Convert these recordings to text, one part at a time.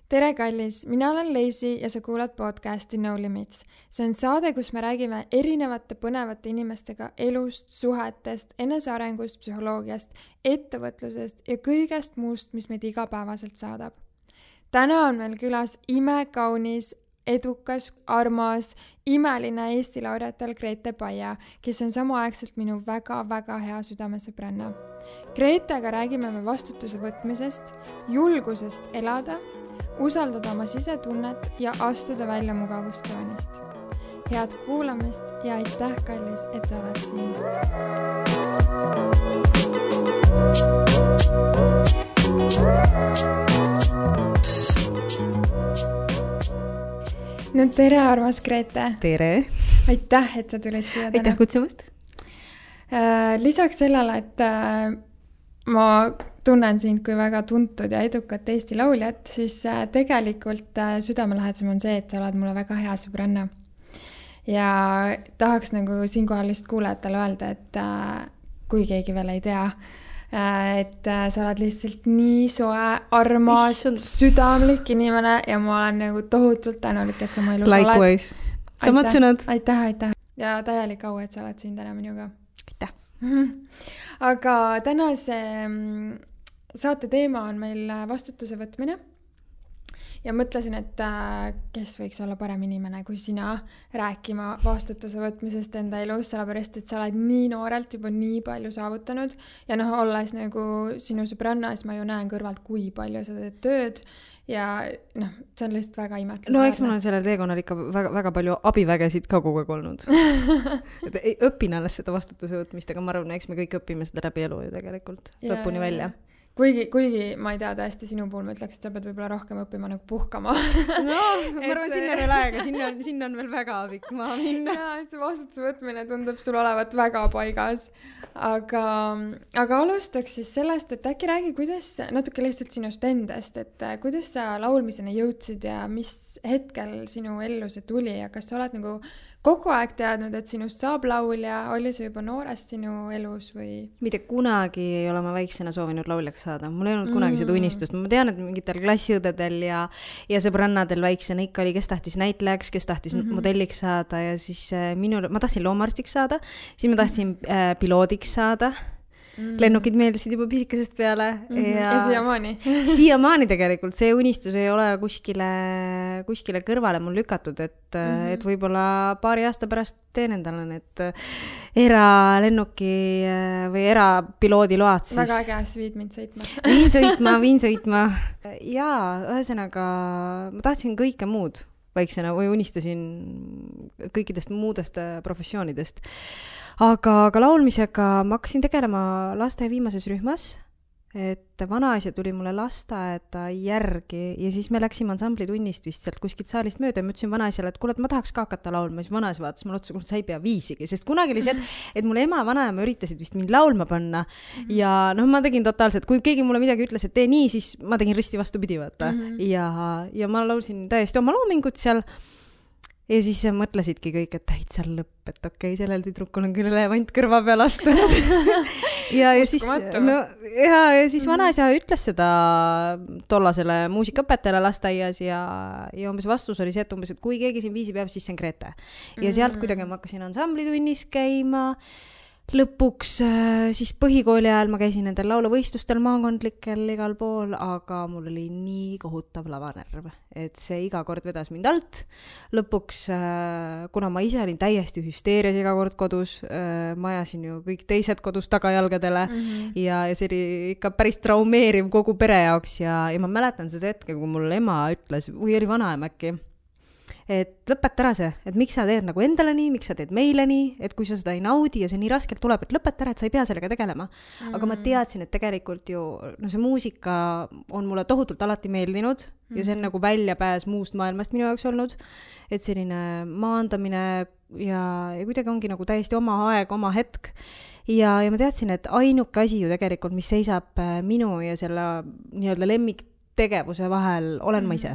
Tere kallis, mina olen Leisi ja sa kuulad podcasti No Limits. See on saade, kus me räägime erinevate põnevate inimestega elust, suhetest, enesearengust, psühholoogiast, ettevõtlusest ja kõigest muust, mis meid igapäevaselt saadab. Täna on meil külas imekaunis, edukas, armas, imeline Eesti laureatel Grete Paia, kes on samaaegselt minu väga-väga hea südamesõbranna. Gretega räägime me vastutuse võtmisest, julgusest elada, usaldada oma sisetunnet ja astuda välja mugavustsoonist. Head kuulamist ja aitäh, kallis, et sa oled siin. No tere, armas Grete. Tere. Aitäh, et sa tulid siia täna. Aitäh kutsumast. Lisaks sellele, et ma tunnen sind kui väga tuntud ja edukat Eesti lauljat, siis tegelikult südamelähedasem on see, et sa oled mulle väga hea sõbranna. Ja tahaks nagu siinkohal lihtsalt kuulajatele öelda, et kui keegi veel ei tea, et sa oled lihtsalt nii soe, armas, südamlik inimene ja ma olen nagu tohutult tänulik, et sa mu elus oled. Likewise. Samad sõnad. Aitäh. Ja täielik au, et sa oled siin täna minuga. Aitäh. Aga tänase saate teema on meil vastutuse võtmine. Ja mõtlesin, et kes võiks olla parem inimene kui sina rääkima vastutuse võtmisest enda elus, sellepärast, et sa oled nii noorelt juba nii palju saavutanud ja olles nagu sinu sõbranna, siis ma ju näen kõrvalt, kui palju sa teed tööd ja see on lihtsalt väga imetlusväärne. No eks mul on sellel teekonnal ikka väga, väga palju abivägesid ka kogu aeg olnud. Õpin alles seda vastutuse võtmist, aga ma arvan, eks me kõik õpime seda läbi elu ju tegelikult lõpuni välja. Kuigi ma ei tea, tõesti sinu puhul ma ütleks, et sa pead võib-olla rohkem õppima nagu puhkama. No, ma arvan, sinna veel aega, sinna on veel väga pikk maa minna. Ja, et see vastutuse võtmine tundub sul olevat väga paigas. Aga alustaks siis sellest, et äkki räägi, kuidas natuke lihtsalt sinust endast, et kuidas sa laulmiseni jõudsid ja mis hetkel sinu ellu see tuli ja kas sa oled nagu kogu aeg teadnud, et sinust saab laulja, oli see juba noorest sinu elus või? Mitte kunagi ei ole ma väiksena soovinud lauljaks saada. Mul ei olnud kunagi seda unistust. Ma tean, et mingitel klassiõdedel ja sõbrannadel väiksena ikka oli, kes tahtis näitlejaks, kes tahtis modelliks saada ja siis ma tahtsin loomaarstiks saada, siis ma tahtsin piloodiks saada. Lennukid meeldisid juba pisikesest peale ja siiamaani. Siiamaani tegelikult see unistus ei ole kuskile kõrvale mul lükatud, et võib-olla paari aasta pärast teen endale need eralennuki või erapiloodi load siis. Väga äge, siis viid mind Viin sõitma. Jaa, ühesõnaga ma tahtsin kõike muud väiksena või unistasin kõikidest muudest professioonidest. Aga laulmisega ma hakkasin tegelema laste viimases rühmas, et vanaisa tuli mulle lasteaeda järgi ja siis me läksime ansamblitunnist vist sealt kuskilt saalist mööda ja ma ütlesin vanaisale, et kuule, et ma tahaks ka hakata laulma. Siis vanaisa vaatas mulle otsa, sa ei pea viisigi, sest kunagi oli see, et mul ema ja vanaema üritasid vist mind laulma panna ja ma tegin totaalselt, kui keegi mulle midagi ütles, et tee nii, siis ma tegin risti vastupidi, vaata. Ja ma laulsin täiesti oma loomingut seal. Ja siis mõtlesidki kõik, et täitsa lõpp, et okei, sellel tüdrukul on küll elevant kõrva peal astunud. ja siis vanaisa ütles seda tollasele muusikaõpetajale lasteaias ja umbes vastus oli see, et kui keegi siin viisi peab, siis see on Grete. Ja sealt kuidagi ma hakkasin ansamblitunnis käima. Lõpuks siis põhikooli ajal ma käisin nendel laulavõistlustel maakondlikel igal pool, aga mul oli nii kohutav lavanerv, et see iga kord vedas mind alt. Lõpuks, kuna ma ise olin täiesti hüsteerias iga kord kodus, ma ajasin ju kõik teised kodus tagajalgadele ja see oli ikka päris traumeeriv kogu pere jaoks ja ma mäletan seda hetke, kui mul ema ütles, või oli vanaema äkki, et lõpeta ära see, et miks sa teed nagu endale nii, miks sa teed meile nii, et kui sa seda ei naudi ja see nii raskelt tuleb, et lõpeta ära, et sa ei pea sellega tegelema. Aga ma teadsin, et tegelikult ju see muusika on mulle tohutult alati meeldinud ja see on nagu väljapääs muust maailmast minu jaoks olnud, et selline maandamine ja kuidagi ongi nagu täiesti oma aeg, oma hetk. Ja ma teadsin, et ainuke asi ju tegelikult, mis seisab minu ja selle nii-öelda lemmiktegevuse vahel, olen ma ise.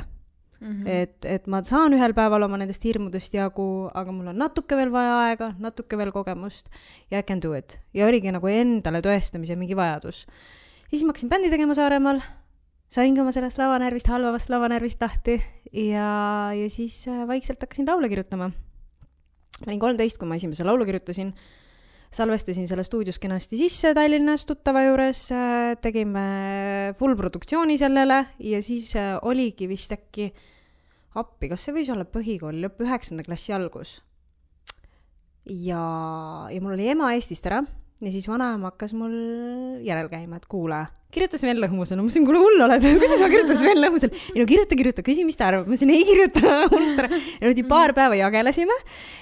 Et ma saan ühel päeval oma nendest hirmudest jagu, aga mul on natuke veel vaja aega, natuke veel kogemust ja I can do it. Ja oligi nagu endale tõestamise mingi vajadus. Siis ma hakkasin bändi tegema Saaremaal saingi oma sellest lavanärvist, halvavast lavanärvist lahti ja siis vaikselt hakkasin laule kirjutama. Ma olin 13, kui ma esimese laulu kirjutasin. Salvestasin selle stuudios kenasti sisse Tallinnas tuttava juures, tegime full produktsiooni sellele ja siis oligi vist äkki appi, kas see võis olla põhikooli lõpp 9. klassi algus. Ja mul oli ema Eestist ära ja siis vanaema hakkas mul järel käima, et kuule, kirjutas Sven Lõhmusel. No ma mõtlesin, kuule hull oled, kuidas ma kirjutan Sven Lõhmusel? Ei no kirjuta, küsi, mis ta arvab. Ma mõtlesin, ei kirjuta, unusta ära. Ja paar päeva jagelesime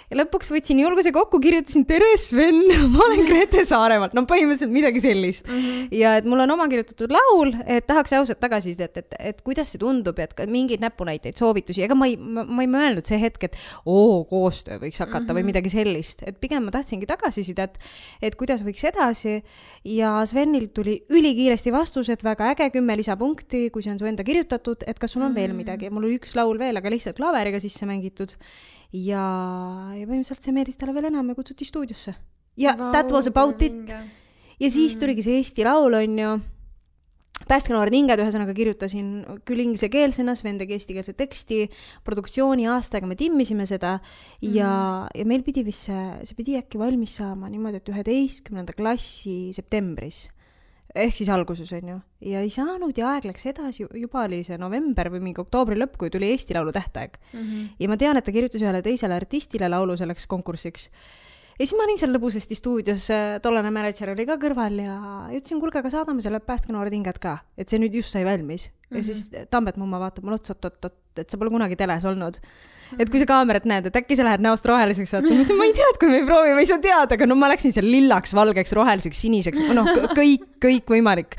ja lõpuks võtsin julguse kokku, kirjutasin tere Sven, ma olen Grete Saaremaalt. No põhimõtteliselt midagi sellist. Ja et mul on oma kirjutatud laul, et tahaks ausalt tagasi, et kuidas see tundub, et mingeid näpunäiteid, soovitusi. Ega ma ei mõelnud see hetk, et koostöö võiks hakata või midagi sellist. Et pigem ma tahtsingi tagasisidet, et kuidas võiks edasi ja Svenil tuli ülikiiresti vastus, et väga äge 10 lisapunkti, kui see on su enda kirjutatud, et kas sul on veel midagi. Mul oli üks laul veel, aga lihtsalt klaveriga sisse mängitud. Ja põhimõtteliselt see meeldis talle veel enam ja kutsuti stuudiosse. Ja that was about it. Ja siis tuligi see Eesti laul, on ju. Pääskenoored hinged ühesõnaga kirjutasin küll inglisekeelsena, Sven tegi eestikeelse teksti, produktsiooni aastaga me timmisime seda ja meil pidi vist see pidi äkki valmis saama niimoodi, et 11. klassi septembris. Ehk siis alguses on ju. Ja ei saanud ja aeg läks edasi, juba oli see november või mingi oktoobri lõpp, kui tuli Eesti laulu tähtaeg. Ja ma tean, et ta kirjutas ühele teisele artistile laulu selleks konkursiks. Ja siis ma olin seal lõbusasti stuudios, tollane manager oli ka kõrval ja ütlesin, kuulge, aga saadame selle Pääskenoored hinged ka, et see nüüd just sai valmis. Ja siis Tambet mumma vaatab mul ots, et sa pole kunagi teles olnud. Et kui sa kaamerat näed, et äkki sa lähed näost roheliseks vaatama, ma ei tea, et kui me ei proovi, ma ei saa teada, aga no ma läksin seal lillaks, valgeks, roheliseks, siniseks, kõik võimalik.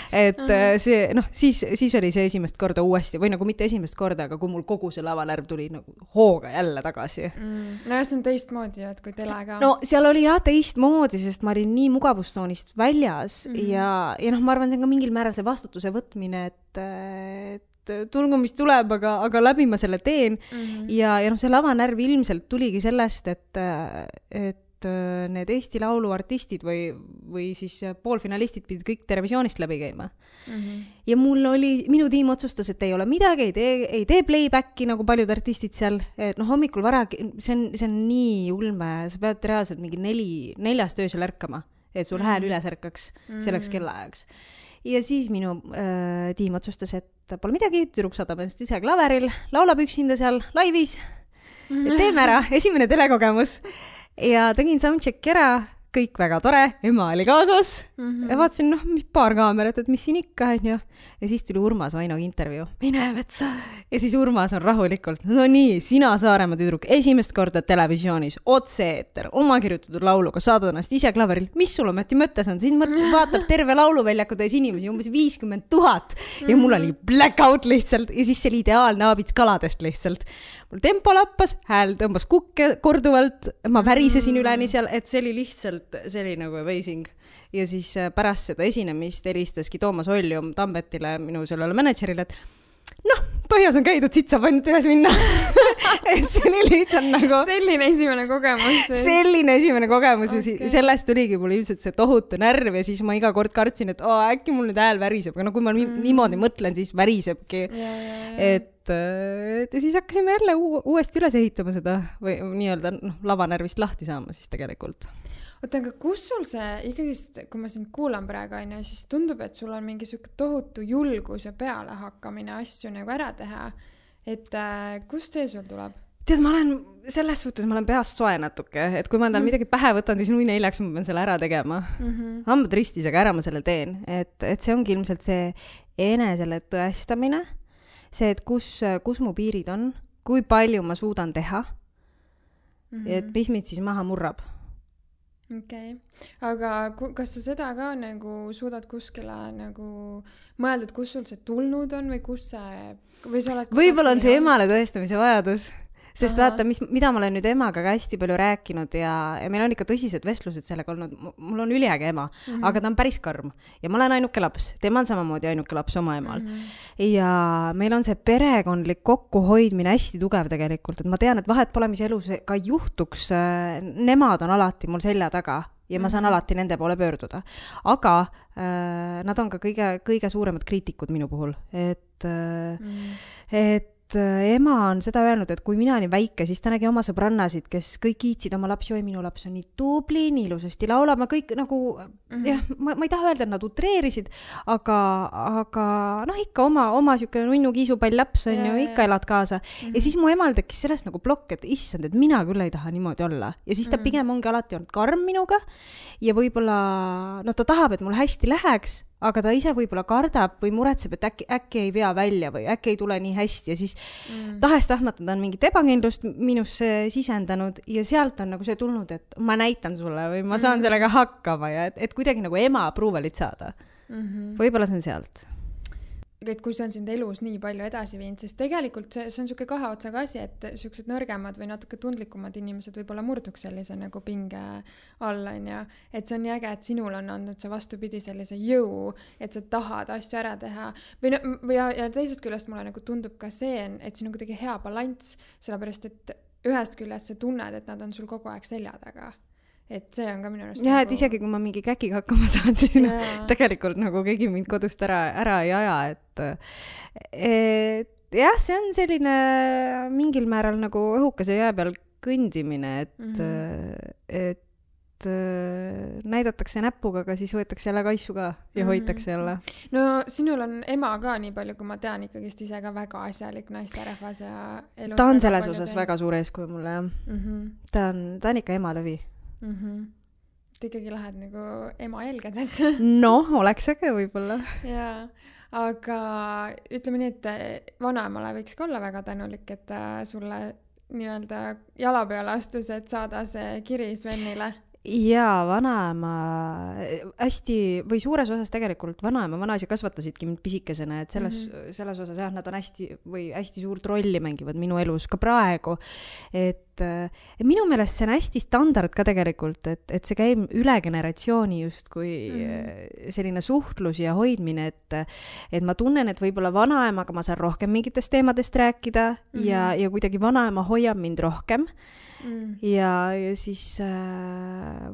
Et see, siis oli see esimest korda uuesti, või nagu mitte esimest korda, aga kui mul kogu see lavanärv tuli nagu hooga jälle tagasi. No ja see on teistmoodi, et kui telega. No seal oli jah teistmoodi, sest ma olin nii mugavustsoonist väljas ja ma arvan, see on ka mingil määral see vastutuse võtmine, et tulgu, mis tuleb, aga läbi ma selle teen. Ja see lavanärv ilmselt tuligi sellest, et need Eesti Laulu artistid või siis poolfinalistid pidid kõik televisioonist läbi käima. Ja minu tiim otsustas, et ei ole midagi, ei tee playbacki nagu paljud artistid seal. Et hommikul vara, see on nii ulme, sa pead reaalselt mingi 4 öösel ärkama, et sul hääl üles ärkaks selleks kellaajaks. Ja siis minu tiim otsustas, et pole midagi, tüdruk saadab ennast ise klaveril, laulab üksinda seal laivis, teeme ära, esimene telekogemus. Ja tegin soundcheck ära, kõik väga tore, ema oli kaasas ja vaatasin, paar kaamerat, et mis siin ikka on ju. Ja siis tuli Urmas Vainoga intervjuu. Mine metsa. Ja siis Urmas on rahulikult. No nii, sina Saaremaa tüdruk, esimest korda televisioonis, otse-eeter, oma kirjutatud lauluga, saadad ennast ise klaveril. Mis sul ometi mõttes on? Siin vaatab terve lauluväljaku täis inimesi, umbes 50 000. Ja mul oli blackout lihtsalt ja siis see oli ideaalne aabits kaladest lihtsalt. Mul tempo lappas, hääl tõmbas kukke korduvalt, ma värisesin üleni seal, et see oli lihtsalt, see oli nagu amazing. Ja siis pärast seda esinemist helistaski Toomas Oljum Tambetile, minu sellele managerile, et põhjas on käidud, siit saab ainult üles minna. Et see oli lihtsalt nagu selline esimene kogemus ja sellest tuligi mul ilmselt see tohutu närv ja siis ma iga kord kartsin, et äkki mul nüüd hääl väriseb, aga kui ma niimoodi mõtlen, siis värisebki. Et siis hakkasime jälle uuesti üles ehitama seda või nii-öelda lavanärvist lahti saama siis tegelikult. Oota, aga kus sul see ikkagist, kui ma sind kuulan praegu, siis tundub, et sul on mingi selline tohutu julgus ja peale hakkamine asju nagu ära teha. Et kust see sul tuleb? Tead, ma olen peast soe natuke, et kui ma endal midagi pähe võtan, siis nui neljaks ma pean selle ära tegema. Hambad ristis, aga ära ma selle teen. Et see ongi ilmselt see enesele tõestamine, see, et kus mu piirid on, kui palju ma suudan teha, et mis mind siis maha murrab. Okei. Aga kas sa seda ka nagu suudad kuskile nagu mõeldud, kus sul see tulnud on või kus see... Või sa oled võib-olla on see emale tõestamise vajadus. Sest vaata, mida ma olen nüüd emaga ka hästi palju rääkinud ja meil on ikka tõsised vestlused sellega olnud. Mul on üliäge ema, aga ta on päris karm. Ja ma olen ainuke laps. Tema on samamoodi ainuke laps oma emal. Ja meil on see perekondlik kokkuhoidmine hästi tugev tegelikult. Et ma tean, et vahet pole, mis elus ka juhtuks. Nemad on alati mul selja taga. ja ma saan alati nende poole pöörduda. Aga nad on ka kõige suuremad kriitikud minu puhul, et ema on seda öelnud, et kui mina olin väike, siis ta nägi oma sõbrannasid, kes kõik kiitsid oma lapsi, oi, minu laps on nii tubli, nii ilusasti laulab, ma kõik nagu, jah, ma ei taha öelda, et nad utreerisid, aga noh, ikka oma siuke nunnu kiisupall laps on ju, ikka elad kaasa. Ja siis mu emal tekkis sellest nagu plokk, et issand, et mina küll ei taha niimoodi olla. Ja siis ta pigem ongi alati olnud karm minuga ja võib-olla, no ta tahab, et mul hästi läheks, aga ta ise võib-olla kardab või muretseb, et äkki ei vea välja või äkki ei tule nii hästi ja siis tahes-tahtmata ta on mingit ebakindlust minusse sisendanud ja sealt on nagu see tulnud, et ma näitan sulle või ma saan sellega hakkama ja et kuidagi nagu ema approval'it saada. Võib-olla see on sealt. Et kui see on sind elus nii palju edasi viinud, sest tegelikult see on siuke kahe otsaga asi, et siuksed nõrgemad või natuke tundlikumad inimesed võib-olla murduks sellise nagu pinge alla, ja et see on nii äge, et sinul on andnud see vastupidi sellise jõu, et sa tahad asju ära teha. Ja teisest küljest mulle nagu tundub ka see, et siin on kuidagi hea balanss, sellepärast et ühest küljest sa tunned, et nad on sul kogu aeg selja taga. Et see on ka minu arust ja, et isegi kui ma mingi käkiga hakkama saan, siis tegelikult nagu keegi mind kodust ära ei aja, et jah, see on selline mingil määral nagu õhukese jää peal kõndimine, et näidatakse näpuga, aga siis võetakse jälle kaisu ka ja hoitakse jälle. No sinul on ema ka nii palju, kui ma tean, ikkagist ise ka väga asjalik naisterahvas ja elus. Ta on selles osas väga suur eeskuju mulle, jah. Ta on ikka ema lõvi. Et ikkagi lähed nagu ema jelgedesse. No, oleks äge võib-olla. Jaa, aga ütleme nii, et vanaemale võiks ka olla väga tänulik, et sulle nii-öelda jala peale astus, et saada see kiri Svenile. Jaa, vanaema hästi või suures osas tegelikult vanaema vanaisa kasvatasidki mind pisikesena, et selles osas jah, nad on hästi suurt rolli mängivad minu elus ka praegu, et minu meelest see on hästi standard ka tegelikult, et see käib üle generatsiooni just kui selline suhtlus ja hoidmine, et ma tunnen, et võib-olla vanaemaga ma saan rohkem mingitest teemadest rääkida ja kuidagi vanaema hoiab mind rohkem. Ja siis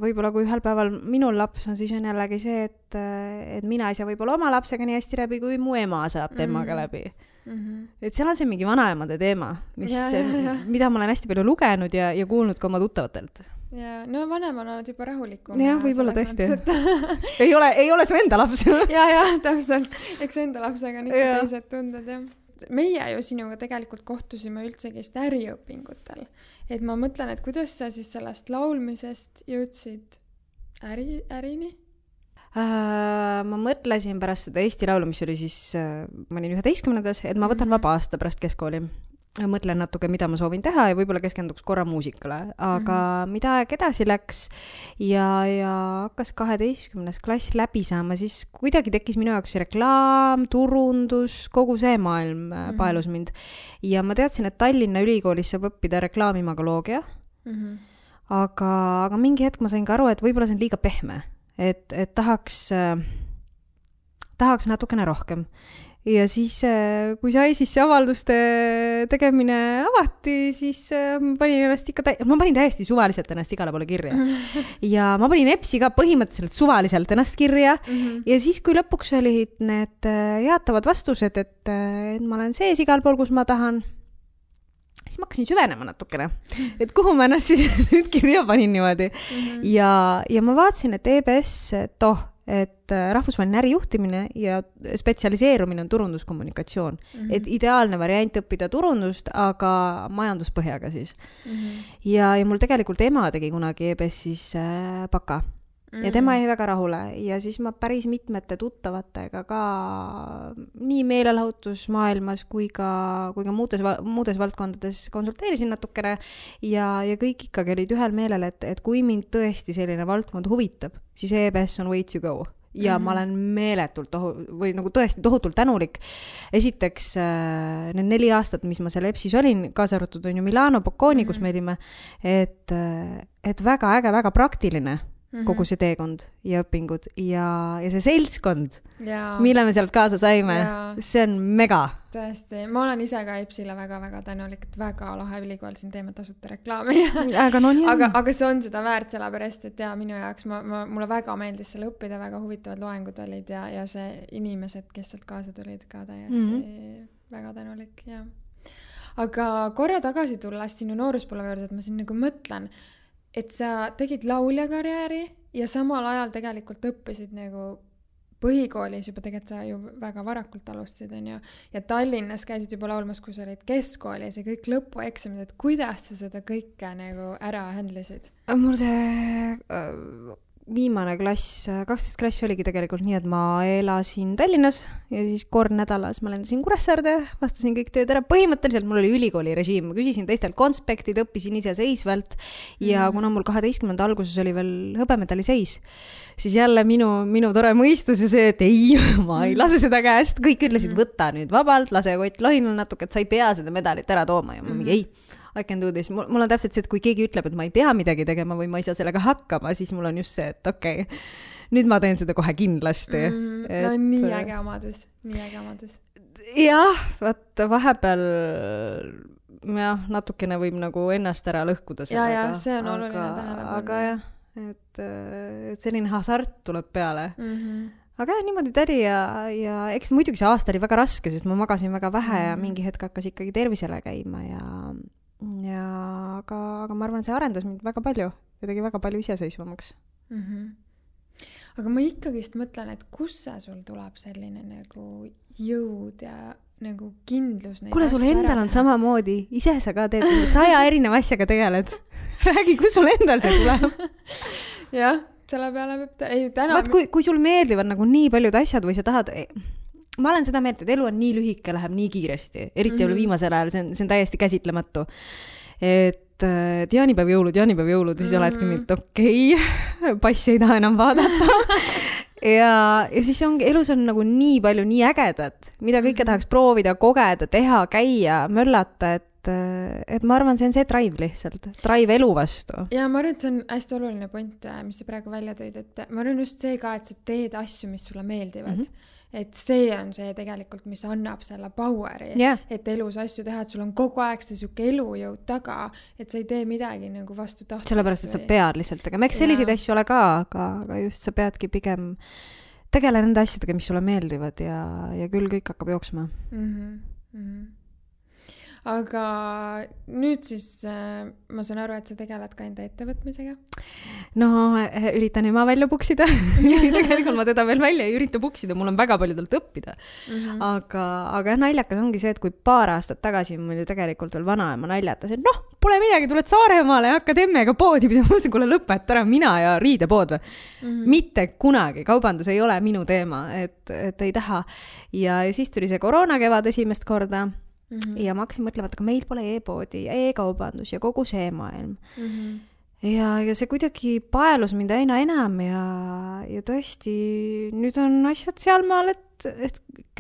võib-olla kui ühel päeval minul laps on, siis on jällegi see, et mina ei saa võib-olla oma lapsega nii hästi läbi, kui mu ema saab temaga läbi. Et seal on see mingi vanaemade teema, mida ma olen hästi palju lugenud ja kuulnud ka oma tuttavatelt. Ja, no vanem on olnud juba rahulikum. Ja, võib-olla tõesti. Ei ole su enda laps. Ja, täpselt. Eks enda lapsega on ikka teised tunded, jah. Meie ju sinuga tegelikult kohtusime üldsegist äriõpingutel. Et ma mõtlen, et kuidas sa siis sellest laulmisest jõudsid ärini? Ma mõtlesin pärast seda Eesti laulu, mis oli siis, ma olin 11-ndas, et ma võtan vaba aasta pärast keskkooli. Mõtlen natuke, mida ma soovin teha ja võib-olla keskenduks korra muusikale, aga mida aeg edasi läks ja hakkas 12. klass läbi saama, siis kuidagi tekkis minu jaoks reklaam, turundus, kogu see maailm paelus mind. Ja ma teadsin, et Tallinna Ülikoolis saab õppida reklaamimagoloogia, aga mingi hetk ma sain ka aru, et võib-olla see on liiga pehme, et tahaks natukene rohkem. Ja siis, kui sai siis see avalduste tegemine avati, siis ma panin täiesti suvaliselt ennast igale poole kirja. Ja ma panin EPS-i ka põhimõtteliselt suvaliselt ennast kirja. Ja siis, kui lõpuks olid need jaatavad vastused, et ma olen sees igal pool, kus ma tahan, siis ma hakkasin süvenema natukene. Et kuhu ma ennast siis nüüd kirja panin niimoodi. Ja ma vaatasin, et EBS, et rahvusvaheline ärijuhtimine ja spetsialiseerumine on turunduskommunikatsioon. Et ideaalne variant õppida turundust, aga majanduspõhjaga siis. Ja mul tegelikult ema tegi kunagi EBS-is baka. Ja tema jäi väga rahule. Ja siis ma päris mitmete tuttavatega ka nii meelelahutusmaailmas kui ka muudes valdkondades konsulteerisin natukene ja kõik ikkagi olid ühel meelel, et kui mind tõesti selline valdkond huvitab, siis EBS on way to go. Ja ma olen meeletult või nagu tõesti tohutult tänulik. Esiteks need 4 aastat, mis ma seal EBS-is olin, kaasa arvatud on ju Milano Bocconi, kus me olime, et väga äge, väga praktiline. kogu see teekond ja õpingud ja see seltskond, Jaa. mille me sealt kaasa saime, see on mega. Tõesti, ma olen ise ka EBS-ile väga-väga tänulik, et väga lahe ülikool siin teeme tasuta reklaami. Aga no nii on. Aga see on seda väärt sellepärast, et minu jaoks mulle väga meeldis seal õppida, väga huvitavad loengud olid ja see inimesed, kes sealt kaasa tulid ka täiesti väga tänulik, jah. Aga korra tagasi tulles sinu nooruspõlve juurde, et ma siin nagu mõtlen, et sa tegid lauljakarjääri ja samal ajal tegelikult õppisid nagu põhikoolis juba, tegelikult sa ju väga varakult alustasid, on ju, ja Tallinnas käisid juba laulmas, kui sa olid keskkoolis ja kõik lõpueksamid, et kuidas sa seda kõike nagu ära handlisid? Mul see viimane klass, 12 klass oligi tegelikult nii, et ma elasin Tallinnas ja siis kord nädalas ma lendasin Kuressaarde, vastasin kõik tööd ära. Põhimõtteliselt mul oli ülikooli režiim, ma küsisin teistelt konspektid, õppisin ise seisvalt ja kuna mul 12. alguses oli veel hõbemedali seis, siis jälle minu tore mõistus ja see, et ei, ma ei lase seda käest. Kõik ütlesid, võta nüüd vabalt, lase Kott Lohinal natuke, et sa ei pea seda medalit ära tooma ja ma mingi ei. I can do this. Mul on täpselt see, et kui keegi ütleb, et ma ei pea midagi tegema või ma ei saa sellega hakkama, siis mul on just see, et okei, nüüd ma teen seda kohe kindlasti. No nii äge omadus, nii äge omadus. Jah, vaat vahepeal natukene võib nagu ennast ära lõhkuda sellega. Ja, see on oluline tähelepanu. Aga jah, et selline hasart tuleb peale. Aga jah, niimoodi tädi ja eks muidugi see aasta oli väga raske, sest ma magasin väga vähe ja mingi hetk hakkas ikkagi tervisele käima aga ma arvan, see arendas mind väga palju ja tegi väga palju iseseisvamaks. Aga ma ikkagist mõtlen, et kus see sul tuleb selline nagu jõud ja nagu kindlus. Kuule, sul endal on samamoodi, ise sa ka teed 100 erineva asjaga tegeled. Räägi, kus sul endal see tuleb? Jah, selle peale peab Vaat, kui sul meeldivad nagu nii paljud asjad või sa tahad... Ma olen seda meelt, et elu on nii lühike, läheb nii kiiresti. Eriti viimasel ajal, see on täiesti käsitlematu. Et jaanipäev jõulud, siis oledki mind, okei, passi ei taha enam vaadata. ja siis elus on nagu nii palju, nii ägedat, mida kõike tahaks proovida, kogeda, teha, käia, möllata, et ma arvan, see on see drive lihtsalt, drive elu vastu. Ja ma arvan, et see on hästi oluline point, mis sa praegu välja tõid, et ma arvan just see ka, et sa teed asju, mis sulle meeldivad. Et see on see tegelikult, mis annab selle poweri, et elus asju teha, et sul on kogu aeg see siuke elujõud taga, et sa ei tee midagi nagu vastu tahtmist. Sellepärast, et sa pead lihtsalt tegema. Eks selliseid asju ole ka, aga just sa peadki pigem tegele nende asjadega, mis sulle meeldivad ja küll kõik hakkab jooksma. Aga nüüd siis ma saan aru, et sa tegeled ka enda ettevõtmisega? No, üritan ema välja puksida. Tegelikult ma teda veel välja ei ürita puksida, mul on väga palju talt õppida. Aga naljakas ongi see, et kui paar aastat tagasi mul ju tegelikult veel vanaema naljatas, et pole midagi, tuled Saaremaale ja hakkad emmega poodi pidama. Ma mõtlesin, kuule lõpet ära, mina ja riidepood või. Mitte kunagi, kaubandus ei ole minu teema, et ei taha. Ja siis tuli see koroona kevad esimest korda. Ja ma hakkasin mõtlema, et aga meil pole e-poodi ja e-kaubandus ja kogu see maailm. Ja see kuidagi paelus mind aina enam ja tõesti nüüd on asjad sealmaal, et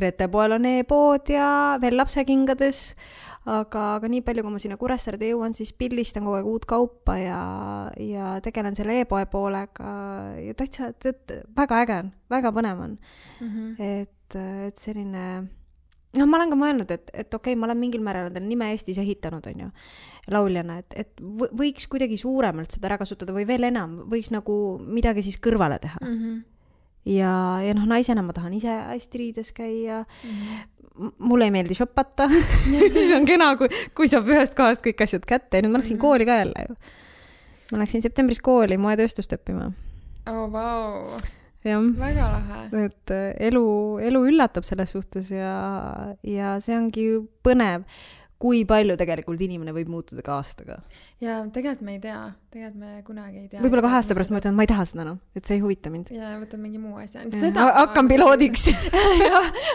Grete poel on e-pood ja veel lapsekingades, aga nii palju, kui ma sinna Kuressaarde jõuan, siis pildistan kogu aeg uut kaupa ja tegelen selle e-poe poolega ja täitsa, et väga äge on, väga põnev on. Et selline... ma olen ka mõelnud, et okei, ma olen mingil määral endale nime Eestis ehitanud, on ju, lauljana, et võiks kuidagi suuremalt seda ära kasutada või veel enam, võiks nagu midagi siis kõrvale teha. Ja naisena ma tahan ise hästi riides käia. Mulle ei meeldi shoppata. Siis on kena, kui saab ühest kohast kõik asjad kätte. Nüüd ma läksin kooli ka jälle ju. Ma läksin septembris kooli moetööstust õppima. Vau. Ja, väga lahe. Et elu üllatab selles suhtes ja see ongi põnev, kui palju tegelikult inimene võib muutuda ka aastaga. Ja tegelikult me ei tea, tegelikult me kunagi ei tea. Võib-olla 2 aasta pärast ma ütlen, et ma ei taha seda, et see ei huvita mind. Ja võtad mingi muu asja. Hakkan piloodiks.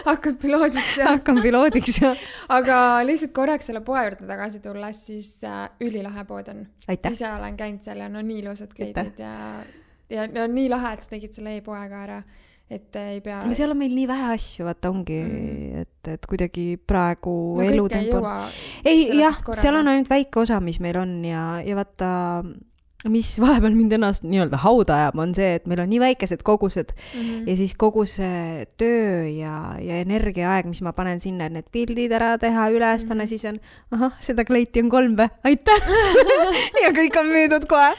Hakkan piloodiks. Hakkan piloodiks, jah. Aga lihtsalt korraks selle poe juurde tagasi tulles, siis ülilahe pood on. Aitäh. Ise olen käinud seal ja nii ilusad kleidid ja nii lahe, et sa tegid selle e-poega ära, et ei pea... Ja seal on meil nii vähe asju, vaata ongi, et kuidagi praegu elutempo... Ei, jah, seal on ainult väike osa, mis meil on ja vaata mis vahepeal mind ennast nii-öelda hauda ajab, on see, et meil on nii väikesed kogused ja siis kogu see töö ja energiaaeg, mis ma panen sinna, et need pildid ära teha, üles panna, siis on, seda kleiti on 3 või, aitäh! ja kõik on müüdud kohe.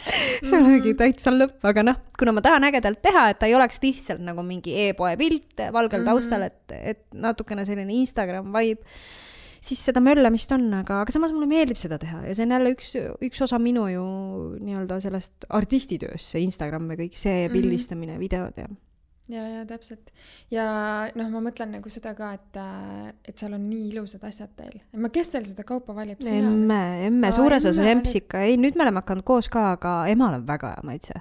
See on mingi täitsa lõpp, aga kuna ma tahan ägedalt teha, et ta ei oleks lihtsalt nagu mingi e-poe pilt valgel taustal, et natukene selline Instagram vibe, siis seda möllamist on, aga samas mulle meeldib seda teha ja see on jälle üks osa minu ju nii-öelda sellest artistitööst, see Instagram ja kõik see pildistamine, videod ja. Ja, täpselt. Ja ma mõtlen nagu seda ka, et seal on nii ilusad asjad teil. Kes teil seda kaupa valib? Emme, suures osas Empsika. Ei, nüüd me oleme hakanud koos ka, aga emal on väga hea maitse.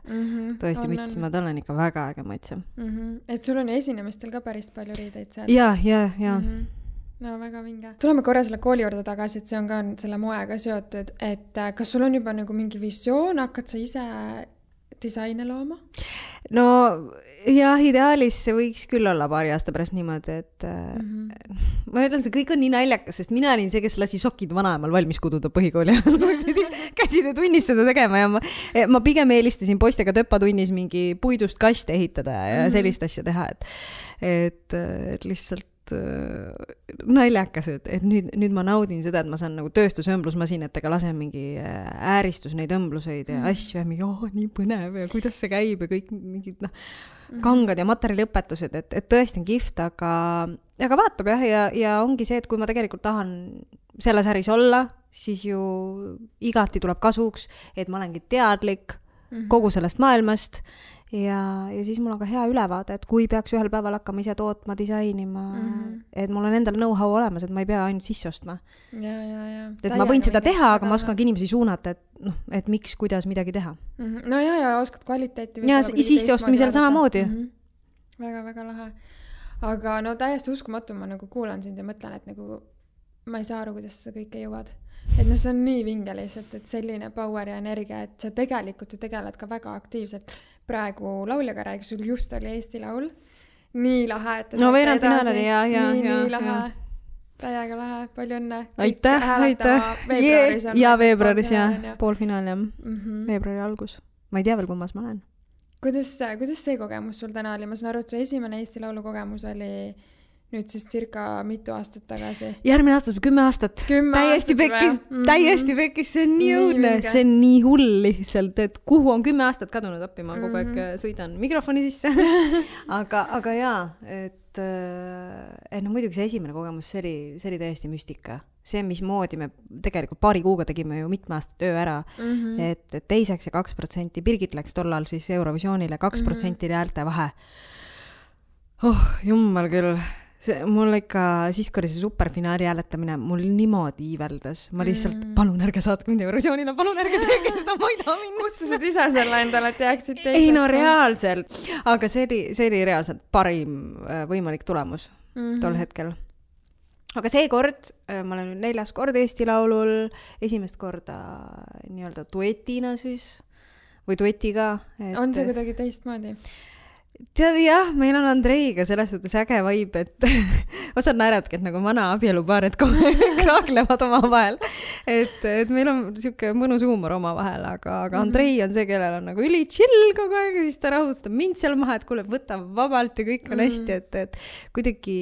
Tõesti müts, ma tal on ikka väga äge maitse. Et sul on esinemistel ka päris palju riideid seal? Ja. No väga vinge. Tuleme korra selle kooli juurde tagasi, et see on ka selle moega seotud, et kas sul on juba nagu mingi visioon, hakkad sa ise disaine looma? No jah, ideaalis see võiks küll olla paari aasta pärast niimoodi, et ma ütlen, see kõik on nii naljakas, sest mina olin see, kes lasi sokid vanaemal valmis kududa põhikooli käside tunnis seda tegema ja ma pigem eelistasin poistega töpatunnis mingi puidust kaste ehitada ja sellist asja teha, et lihtsalt naljakas, et nüüd ma naudin seda, et ma saan nagu tööstusõmblusmasinatega lasen mingi ääristus neid õmbluseid ja asju ja mingi, nii põnev ja kuidas see käib ja kõik mingid kangad ja materjaliõpetused, et tõesti on kihvt, aga vaatab ja ongi see, et kui ma tegelikult tahan selles äris olla, siis ju igati tuleb kasuks, et ma olengi teadlik kogu sellest maailmast ja siis mul on ka hea ülevaade, et kui peaks ühel päeval hakkama ise tootma, disainima, et mul on endal know-how olemas, et ma ei pea ainult sisse ostma. Ja. Et ma võin seda teha, aga ma oskan inimesi suunata, et miks, kuidas midagi teha. No ja oskad kvaliteeti. Ja sisse ostmisel samamoodi. Väga lahe. Aga täiesti uskumatu, ma nagu kuulan sind ja mõtlen, et nagu ma ei saa aru, kuidas seda kõike jõuad. Et see on nii vinge lihtsalt, et selline power ja energia, et sa tegelikult ju tegeled ka väga aktiivselt. Praegu lauljaga räägi, sul just oli Eesti Laul. Nii lahe, et no veerand finaalini, ja. Nii lahe. Täiega lahe, palju õnne. Aitäh. Veebruaris on. Ja veebruaris, ja. Poolfinaal, jah. Veebruari algus. Ma ei tea veel, kummas ma olen. Kuidas see kogemus sul täna oli? Ma saan aru, et su esimene Eesti Laulu kogemus oli nüüd siis circa mitu aastat tagasi. Järgmine aastat, 10 aastat. Täiesti pekkis, see on nii õudne, see on nii hull lihtsalt, et kuhu on 10 aastat kadunud appi, ma kogu aeg sõidan mikrofoni sisse. aga jaa, et muidugi see esimene kogemus, see oli täiesti müstika. See, mismoodi me tegelikult paari kuuga tegime ju mitme aasta töö ära, et teiseks ja 2%, Birgit läks tollal siis Eurovisioonile, 2% häälte vahe. Jummal küll. Mul ikka, siis kui oli see superfinaali hääletamine, mul niimoodi iiveldas. Ma lihtsalt, palun ärge saatke mind Eurovisioonile, palun ärge teege seda, ma ei taha minna. Kutsused ise selle endale, et jääksid teiseks. Ei no reaalselt, aga see oli reaalselt parim võimalik tulemus tol hetkel. Aga see kord, ma olen 4. kord Eesti Laulul, esimest korda nii-öelda duetina siis, või duetiga. On see kuidagi teistmoodi? Tead, jah, meil on Andreiga selles suhtes äge vibe, et osad naeravadki, et nagu vana abielupaar, et kraaklevad oma vahel. Et meil on siuke mõnus huumor oma vahel, aga Andrei on see, kellel on nagu üli chill kogu aeg, ja siis ta rahutstab mind seal maha, et kuule, võta vabalt ja kõik on hästi, et kuidagi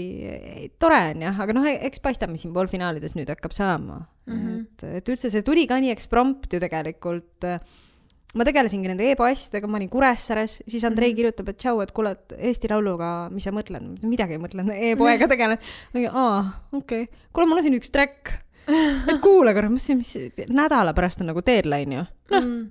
tore on jah, aga eks paistame siin poolfinaalides nüüd hakkab saama. Et üldse see tuli ka nii eksprompt ju tegelikult. Ma tegelesingi nende e-poastidega, ma olin Kuressaares, siis Andrei kirjutab, et tšau, et kuule, Eesti Lauluga, mis sa mõtled? Midagi ei mõtlen, e-poega tegelen. Okei. Kuule, mul on siin üks track. Et kuule korra, mis nädala pärast on nagu deadline ju.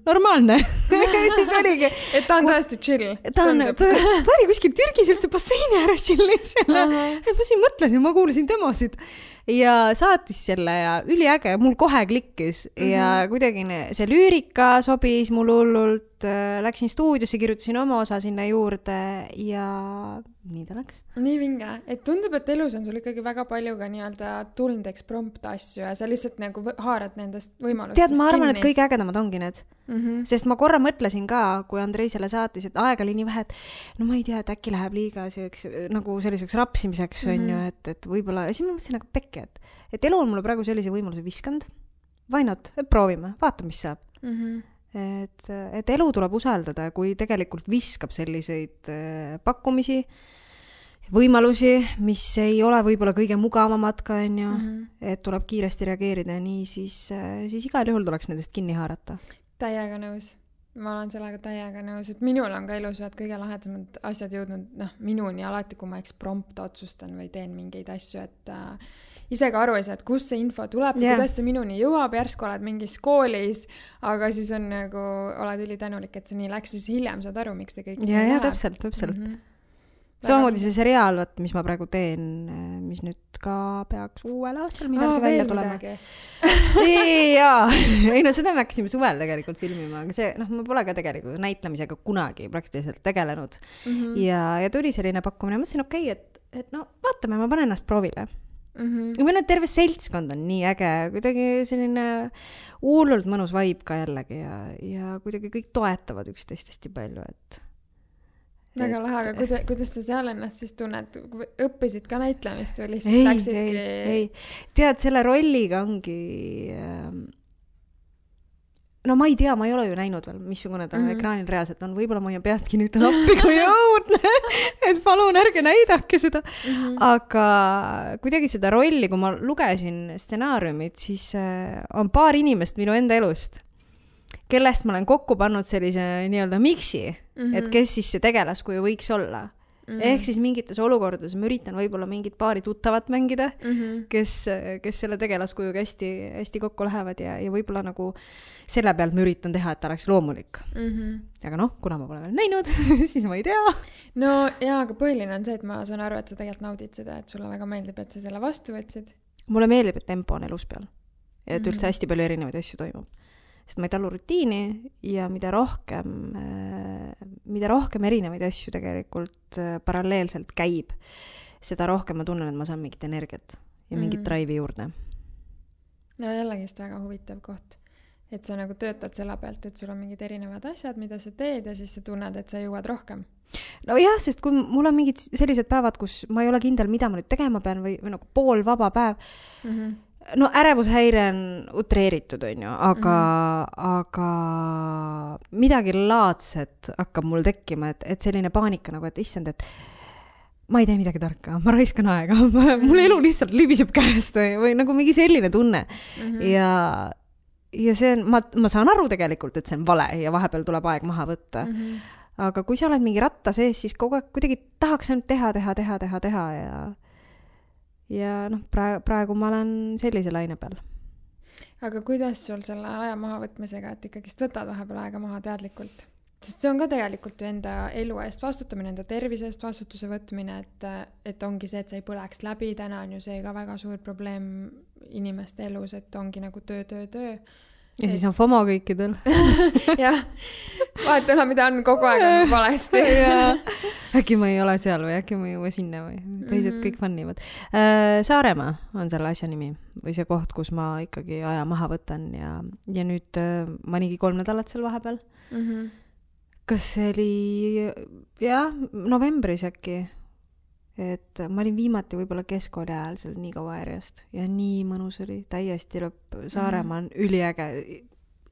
Normaalne. Siis oligi. Et ta on tõesti chill. Ta oli kuskil Türgis üldse basseini ääres chillis selle. Ma siin mõtlesin, ma kuulasin demosid. Ja saatis selle ja üliäge, mul kohe klikkis ja kuidagi see lüürika sobis mul hullult, läksin stuudiosse, kirjutasin oma osa sinna juurde ja nii ta läks. Nii vinge, et tundub, et elus on sul ikkagi väga palju ka nii-öelda tulnud eksprompt asju ja sa lihtsalt nagu haarad nendest võimalustest. Tead, ma arvan, et kõige ägedamad ongi need. Sest ma korra mõtlesin ka, kui Andrei selle saatis, et aeg oli nii vähe, et no ma ei tea, et äkki läheb liiga nagu selliseks rapsimiseks on ju, et võib-olla, ja siis ma mõtlesin nagu pekki, et elu on mulle praegu sellise võimaluse viskanud. Why not? Proovime, vaata, mis saab. et elu tuleb usaldada, kui tegelikult viskab selliseid pakkumisi, võimalusi, mis ei ole võib-olla kõige mugavamad ka, on ju, et tuleb kiiresti reageerida ja nii, siis igal juhul tuleks nendest kinni haarata. Täiega nõus. Ma olen sellega täiega nõus, et minul on ka elus kõige lahedasemad asjad jõudnud minuni alati, kui ma prompt otsustan või teen mingeid asju, et ise ka aru ei saa, et kus see info tuleb, kuidas see minuni jõuab, järsku oled mingis koolis, aga siis on nagu, oled ülitänulik, et see nii läks, siis hiljem saad aru, miks see kõik ja täpselt. Samamoodi see seriaal, mis ma praegu teen, mis nüüd ka peaks uuel aastal midagi välja tulema. Ei no seda me hakkasime suvel tegelikult filmima, aga see, ma pole ka tegelikult näitlemisega kunagi praktiliselt tegelenud. Ja tuli selline pakkumine, mõtlesin, okei, et vaatame, ma panen ennast proovile. Või terve seltskond on nii äge, kuidagi selline hullult mõnus vibe ka jällegi ja kuidagi kõik toetavad üksteist hästi palju, et väga lahe, aga kuidas sa seal ennast siis tunned? Õppisid ka näitlemist või lihtsalt läksidki? Ei. Tead, selle rolliga ongi... No ma ei tea, ma ei ole ju näinud veel, missugune ta ekraanil reaalselt on. Võib-olla ma peastki nüüd appi, kui õudne, et palun ärge näidake seda. Aga kuidagi seda rolli, kui ma lugesin stsenaariumit, siis on paar inimest minu enda elust, kellest ma olen kokku pannud sellise nii-öelda miksi, et kes siis see tegelaskuju võiks olla. Ehk siis mingites olukordades ma üritan võib-olla mingit paari tuttavat mängida, kes selle tegelaskujuga hästi kokku lähevad ja võib-olla nagu selle pealt ma üritan teha, et ta oleks loomulik. Aga kuna ma pole veel näinud, siis ma ei tea. No jaa, aga põhiline on see, et ma saan aru, et sa tegelikult naudid seda, et sulle väga meeldib, et sa selle vastu võtsid. Mulle meeldib, et tempo on elus peal. Ja et üldse hästi palju erinevaid asju toimub. Sest ma ei talu rutiini ja mida rohkem erinevaid asju tegelikult paralleelselt käib, seda rohkem ma tunnen, et ma saan mingit energiat ja mingit drive'i juurde. No jällegist väga huvitav koht, et sa nagu töötad selle pealt, et sul on mingid erinevad asjad, mida sa teed ja siis sa tunned, et sa jõuad rohkem. No jah, sest kui mul on mingid sellised päevad, kus ma ei ole kindel, mida ma nüüd tegema pean või nagu pool vaba päev, no ärevushäire on utreeritud, on ju, aga midagi laadset hakkab mul tekkima, et selline paanika nagu, et issand, et ma ei tee midagi tarka, ma raiskan aega, mul elu lihtsalt libiseb käest või nagu mingi selline tunne. Ja see on, ma saan aru tegelikult, et see on vale ja vahepeal tuleb aeg maha võtta. Aga kui sa oled mingi ratta sees, siis kogu aeg kuidagi tahaks ainult teha ja praegu ma olen sellise laine peal. Aga kuidas sul selle aja maha võtmisega, et ikkagist võtad vahepeal aega maha teadlikult? Sest see on ka tegelikult ju enda elu eest vastutamine, enda tervise eest vastutuse võtmine, et ongi see, et sa ei põleks läbi. Täna on ju see ka väga suur probleem inimeste elus, et ongi nagu töö. Ja siis on FOMO kõikidel. Jah, vaatame, mida on kogu aeg on valesti. Äkki ma ei ole seal või äkki ma ei jõua sinna või teised kõik fannivad. Saaremaa on selle asja nimi või see koht, kus ma ikkagi aja maha võtan ja nüüd ma oligi 3 nädalat seal vahepeal. Kas see oli novembris äkki? Et ma olin viimati võib-olla keskkooli ajal seal nii kaua järjest ja nii mõnus oli, täiesti lõpp. Saaremaa on üliäge.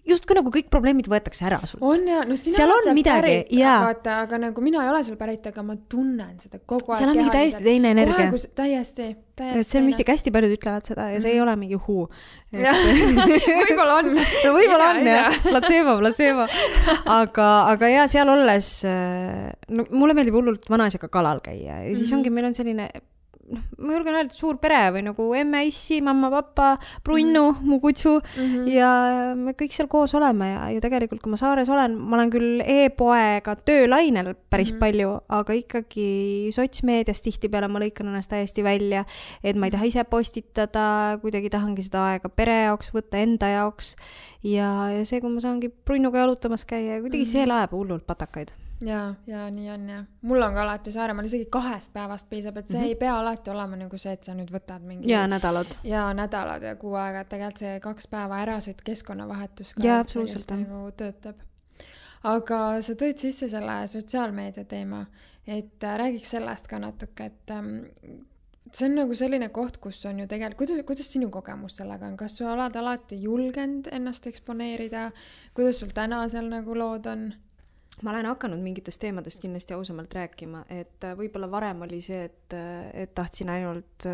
Justkui nagu kõik probleemid võetakse ära sult. On ja, no sina seal on midagi, vaata, aga nagu mina ei ole seal pärit, aga ma tunnen seda kogu aeg. Seal on mingi täiesti teine energia. Täiesti. Et see on müstik, hästi paljud ütlevad seda ja see ei ole mingi huu. Võib-olla on. No võib-olla on, jah. Placebo. Aga ja seal olles, mulle meeldib hullult vanaisaga kalal käia ja siis ongi, meil on selline, ma julgen öelda, suur pere või nagu emme, issi, mamma, papa, Brunnu, mu kutsu ja me kõik seal koos oleme ja tegelikult, kui ma saares olen, ma olen küll e-poega töölainel päris palju, aga ikkagi sotsmeedias tihtipeale ma lõikan ennast täiesti välja, et ma ei taha ise postitada, kuidagi tahangi seda aega pere jaoks võtta, enda jaoks ja see, kui ma saangi Brunnuga jalutamas käia, kuidagi see laeb hullult patakaid. Ja nii on ja. Mul on ka alati Saaremaal isegi 2 päevast piisab, et see ei pea alati olema nagu see, et sa nüüd võtad mingi... Ja nädalad. Ja nädalad ja 6 aega, et tegelikult see 2 päeva ärasid keskkonnavahetus ka nagu töötab. Aga sa tõid sisse selle sotsiaalmeedia teema, et räägiks sellest ka natuke, et see on nagu selline koht, kus on ju tegelikult, kuidas sinu kogemus sellega on, kas sa oled alati julgenud ennast eksponeerida, kuidas sul täna seal nagu lood on? Ma olen hakanud mingitest teemadest kindlasti ausamalt rääkima, et võib-olla varem oli see, et tahtsin ainult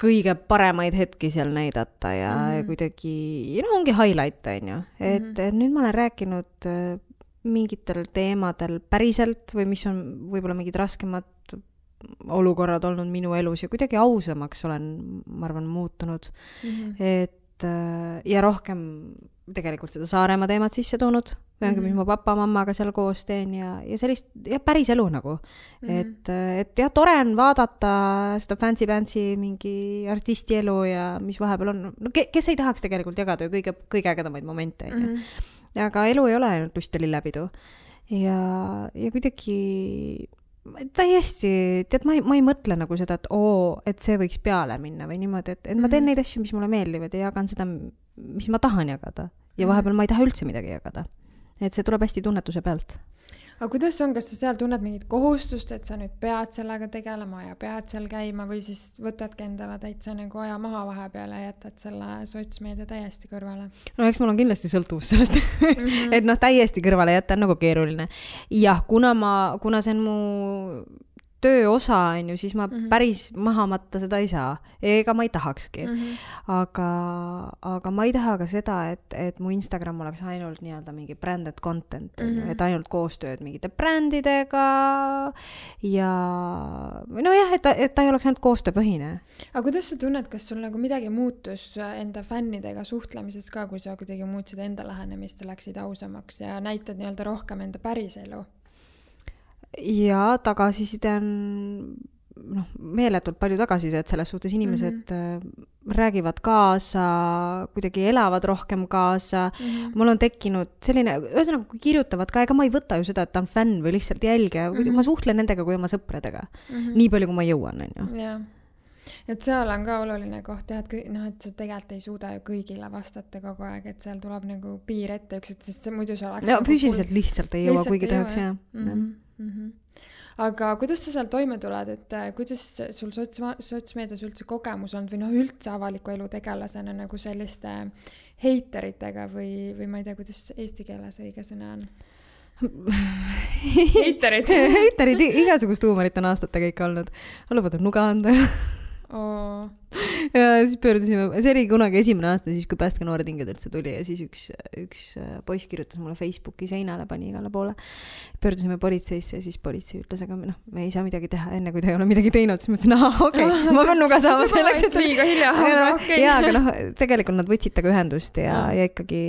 kõige paremaid hetki seal näidata ja kuidagi, ongi highlight, on ju. Et nüüd ma olen rääkinud mingitel teemadel päriselt või mis on võib-olla mingid raskemad olukorrad olnud minu elus ja kuidagi ausamaks olen, ma arvan, muutunud. Et ja rohkem tegelikult seda Saaremaa teemat sisse toonud, mis ma papa-mammaga seal koos teen ja sellist ja päris elu nagu. Et ja tore on vaadata seda fancy mingi artisti elu ja mis vahepeal on. No, kes ei tahaks tegelikult jagada ju kõige ägedamaid momente. Aga elu ei ole ainult lust ja lillepidu. Ja kuidagi täiesti, tead, ma ei mõtle nagu seda, et see võiks peale minna või niimoodi, et ma teen neid asju, mis mulle meeldivad ja jagan seda, mis ma tahan jagada. Ja vahepeal ma ei taha üldse midagi jagada. Et see tuleb hästi tunnetuse pealt. Aga kuidas on, kas sa seal tunned mingit kohustust, et sa nüüd pead sellega tegelema ja pead seal käima või siis võtadki endale täitsa nagu aja maha vahepeal ja jätad selle sotsmeedia täiesti kõrvale? No eks mul on kindlasti sõltuvus sellest, et täiesti kõrvale jätta on nagu keeruline. Jah, kuna see on mu töö osa, on ju, siis ma päris maha matta seda ei saa. Ega ma ei tahakski. Aga ma ei taha ka seda, et mu Instagram oleks ainult nii-öelda mingi branded content, et ainult koostööd mingite brändidega ja nojah, et ta ei oleks ainult koostööpõhine. Aga kuidas sa tunned, kas sul nagu midagi muutus enda fännidega suhtlemises ka, kui sa kuidagi muutsid enda lähenemist ja läksid ausamaks ja näitad nii-öelda rohkem enda päris elu? Ja tagasiside on meeletult palju tagasisidet selles suhtes, inimesed räägivad kaasa, kuidagi elavad rohkem kaasa. Mul on tekkinud selline, ühesõnaga kui kirjutavad ka, ega ma ei võta ju seda, et ta on fänn või lihtsalt jälgija, ma suhtlen nendega kui oma sõpradega. Nii palju, kui ma jõuan, on ju. Jah. Et seal on ka oluline koht, et sa tegelikult ei suuda ju kõigile vastata kogu aeg, et seal tuleb nagu piir ette sest see muidu see oleks... No, füüsiliselt lihtsalt ei jõua, kuigi tahaks, jah. Aga kuidas sa seal toime tuled, et kuidas sul sotsmeedias üldse kogemus on või üldse avaliku elu tegelasena nagu selliste heiteritega või ma ei tea, kuidas eesti keeles õige sõna on? Heiterid, igasugust huumorit on aastatega ikka olnud. Lubad on nuga anda. Ja siis pöördusime, see oli kunagi esimene aasta, siis kui Päästke noored hinged üldse tuli ja siis üks poiss kirjutas mulle Facebooki seinale, pani igale poole. Pöördusime politseisse ja siis politsei ütles, aga me ei saa midagi teha enne, kui ta ei ole midagi teinud. Siis mõtlesin, okei, ma pean nuga saama selleks, et... Liiga hilja, okei. Ja, aga tegelikult nad võtsid taga ühendust ja ikkagi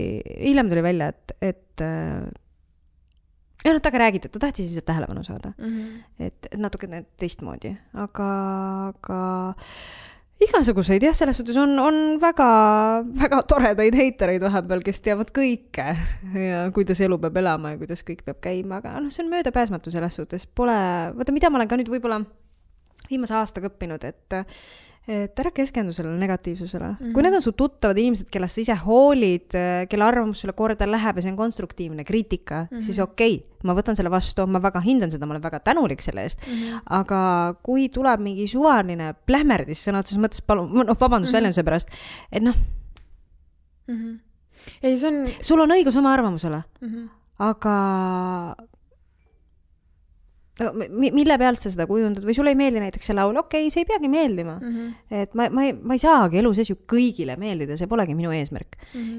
hiljem tuli välja, et ja taga räägid, et ta tahtis siis tähelepanu saada. Et natuke teistmoodi. Aga igasuguseid, jah, selles suhtes on väga, väga toredaid heitereid vahepeal, kes teavad kõike ja kuidas elu peab elama ja kuidas kõik peab käima, aga see on möödapääsmatu selles suhtes. Vaata, mida ma olen ka nüüd võib-olla viimase aastaga õppinud, et ära keskendu sellele negatiivsusele. Kui need on su tuttavad inimesed, kellest sa ise hoolid, kelle arvamus sulle korda läheb ja see on konstruktiivne kriitika, siis okei, ma võtan selle vastu, ma väga hindan seda, ma olen väga tänulik selle eest. Aga kui tuleb mingi suvaline plähmerdis sõna otseses mõttes, palun, vabandust väljenduse pärast, et ei, see on... sul on õigus oma arvamusele, aga... mille pealt sa seda kujundad või sulle ei meeldi näiteks see laul, okei, see ei peagi meeldima. Et ma ei saagi elu sees ju kõigile meeldida, see polegi minu eesmärk.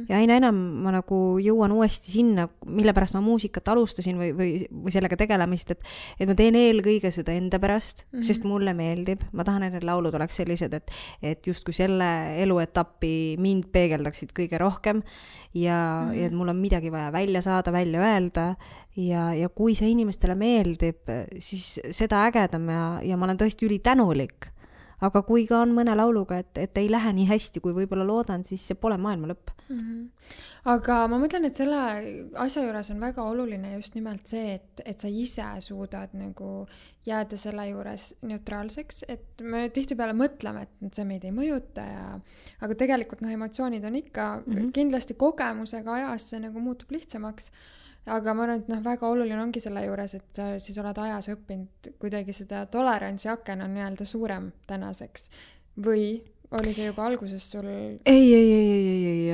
Ja aina enam ma nagu jõuan uuesti sinna, mille pärast ma muusikat alustasin või sellega tegelemist, et ma teen eelkõige seda enda pärast, sest mulle meeldib. Ma tahan, et need laulud oleks sellised, et just kui selle eluetappi mind peegeldaksid kõige rohkem ja et mul on midagi vaja välja saada, välja öelda ja kui see inimestele meeldib, siis seda ägedam ja ma olen tõesti ülitänulik. Aga kui ka on mõne lauluga, et ei lähe nii hästi, kui võib-olla loodan, siis see pole maailma lõpp. Aga ma mõtlen, et selle asja juures on väga oluline just nimelt see, et sa ise suudad nagu jääda selle juures neutraalseks, et me tihtipeale mõtleme, et see meid ei mõjuta aga tegelikult emotsioonid on ikka kindlasti kogemusega ajas see nagu muutub lihtsamaks. aga ma arvan, et väga oluline ongi selle juures, et sa siis oled ajas õppinud kuidagi seda tolerantsi aken on nii-öelda suurem tänaseks. Või oli see juba alguses sul? Ei.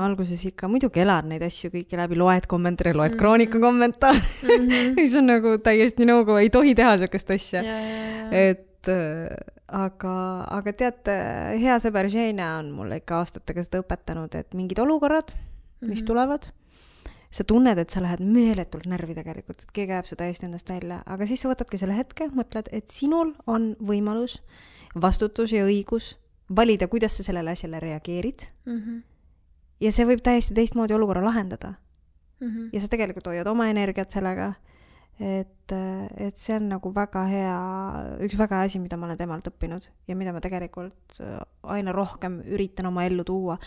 Alguses ikka muidugi elad neid asju kõiki läbi, loed kommentaare, loed Kroonika kommentaare. Mis on nagu täiesti nõuga, ei tohi teha sellist asja. Et aga tead, hea sõber Ženia on mulle ikka aastatega seda õpetanud, et mingid olukorrad, mis tulevad, sa tunned, et sa lähed meeletult närvi tegelikult, et keegi ajab su täiesti endast välja, aga siis sa võtadki selle hetke, mõtled, et sinul on võimalus, vastutus ja õigus valida, kuidas sa sellele asjale reageerid. Ja see võib täiesti teistmoodi olukorra lahendada. Ja sa tegelikult hoiad oma energiat sellega, et see on nagu väga hea, üks väga hea asi, mida ma olen temalt õppinud ja mida ma tegelikult aina rohkem üritan oma ellu tuua,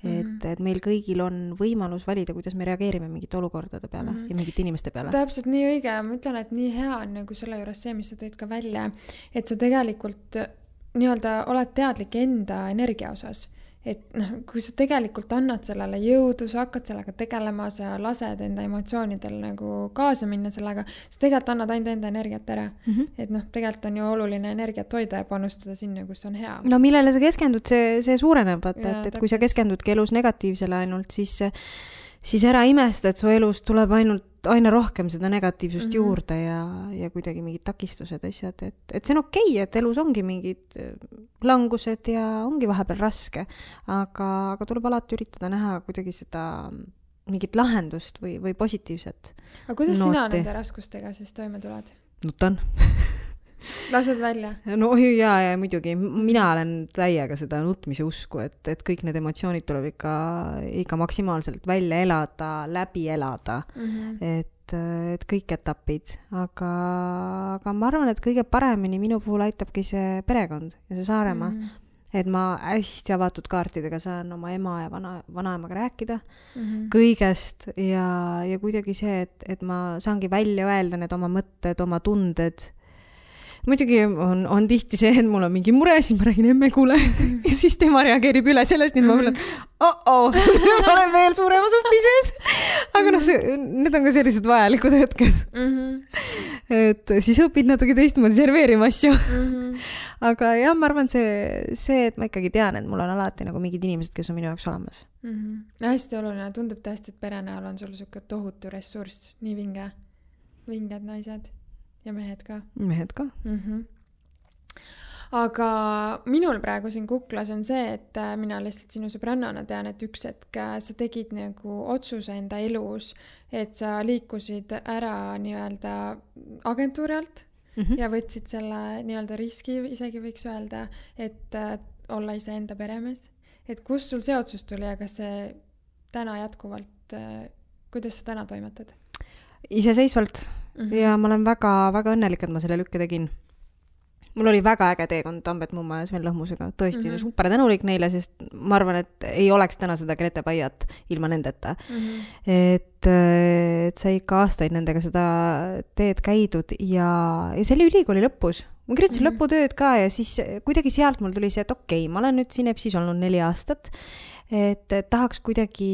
et meil kõigil on võimalus valida, kuidas me reageerime mingite olukordade peale ja mingite inimeste peale. Täpselt nii õige, ma ütlen, et nii hea on nagu selle juures see, mis sa tõid ka välja, et sa tegelikult nii-öelda oled teadlik enda energia osas. Et kui sa tegelikult annad sellele jõudu, sa hakkad sellega tegelema, sa lased enda emotsioonidel nagu kaasa minna sellega, sa tegelikult annad ainult enda energiat ära. Et tegelikult on ju oluline energiat hoida ja panustada sinna, kus on hea. No millele sa keskendud, see suureneb, et kui sa keskendudki elus negatiivsele ainult, siis ära imesta, et su elus tuleb aina rohkem seda negatiivsust juurde ja kuidagi mingid takistused asjad, et see on okei, et elus ongi mingid langused ja ongi vahepeal raske, aga tuleb alati üritada näha kuidagi seda mingit lahendust või positiivset. Aga kuidas sina nende raskustega siis toime tuled? Nutan. Lased välja? No ja muidugi, mina olen täiega seda nutmise usku, et kõik need emotsioonid tuleb ikka maksimaalselt välja elada, läbi elada, et kõik etapid, aga ma arvan, et kõige paremini minu puhul aitabki see perekond ja see Saaremaa, et ma hästi avatud kaartidega saan oma ema ja vanaemaga rääkida kõigest ja kuidagi see, et ma saangi välja öelda need oma mõtted, oma tunded. Muidugi on tihti see, et mul on mingi mure, siis ma räägin emme kuule ja siis tema reageerib üle sellest, nii et ma mõtlen, ma olen veel suurema supi sees. Aga need on ka sellised vajalikud hetked. Et siis õpid natuke teistmoodi serveerima asju. Aga jah, ma arvan see, et ma ikkagi tean, et mul on alati nagu mingid inimesed, kes on minu jaoks olemas. Hästi oluline, tundub tõesti, et pere näol on sul siuke tohutu ressurss, nii vinged naised. Ja mehed ka. Aga minul praegu siin kuklas on see, et mina lihtsalt sinu sõbrannana tean, et üks hetk sa tegid nagu otsuse enda elus, et sa liikusid ära nii-öelda agentuuri alt ja võtsid selle nii-öelda riski, isegi võiks öelda, et olla ise enda peremees. Et kus sul see otsus tuli ja kas see täna jätkuvalt, kuidas sa täna toimetad? Iseseisvalt ja ma olen väga, väga õnnelik, et ma selle lükke tegin. Mul oli väga äge teekond Tambet Mumma ja Sven Lõhmusega. Tõesti super tänulik neile, sest ma arvan, et ei oleks täna seda Grete Paiat ilma nendeta. Et sa ikka aastaid nendega seda teed käidud ja see oli ülikooli lõpus. Ma kirjutasin lõputööd ka ja siis kuidagi sealt mul tuli see, et okei, ma olen nüüd siin EPSis olnud 4 aastat, et tahaks kuidagi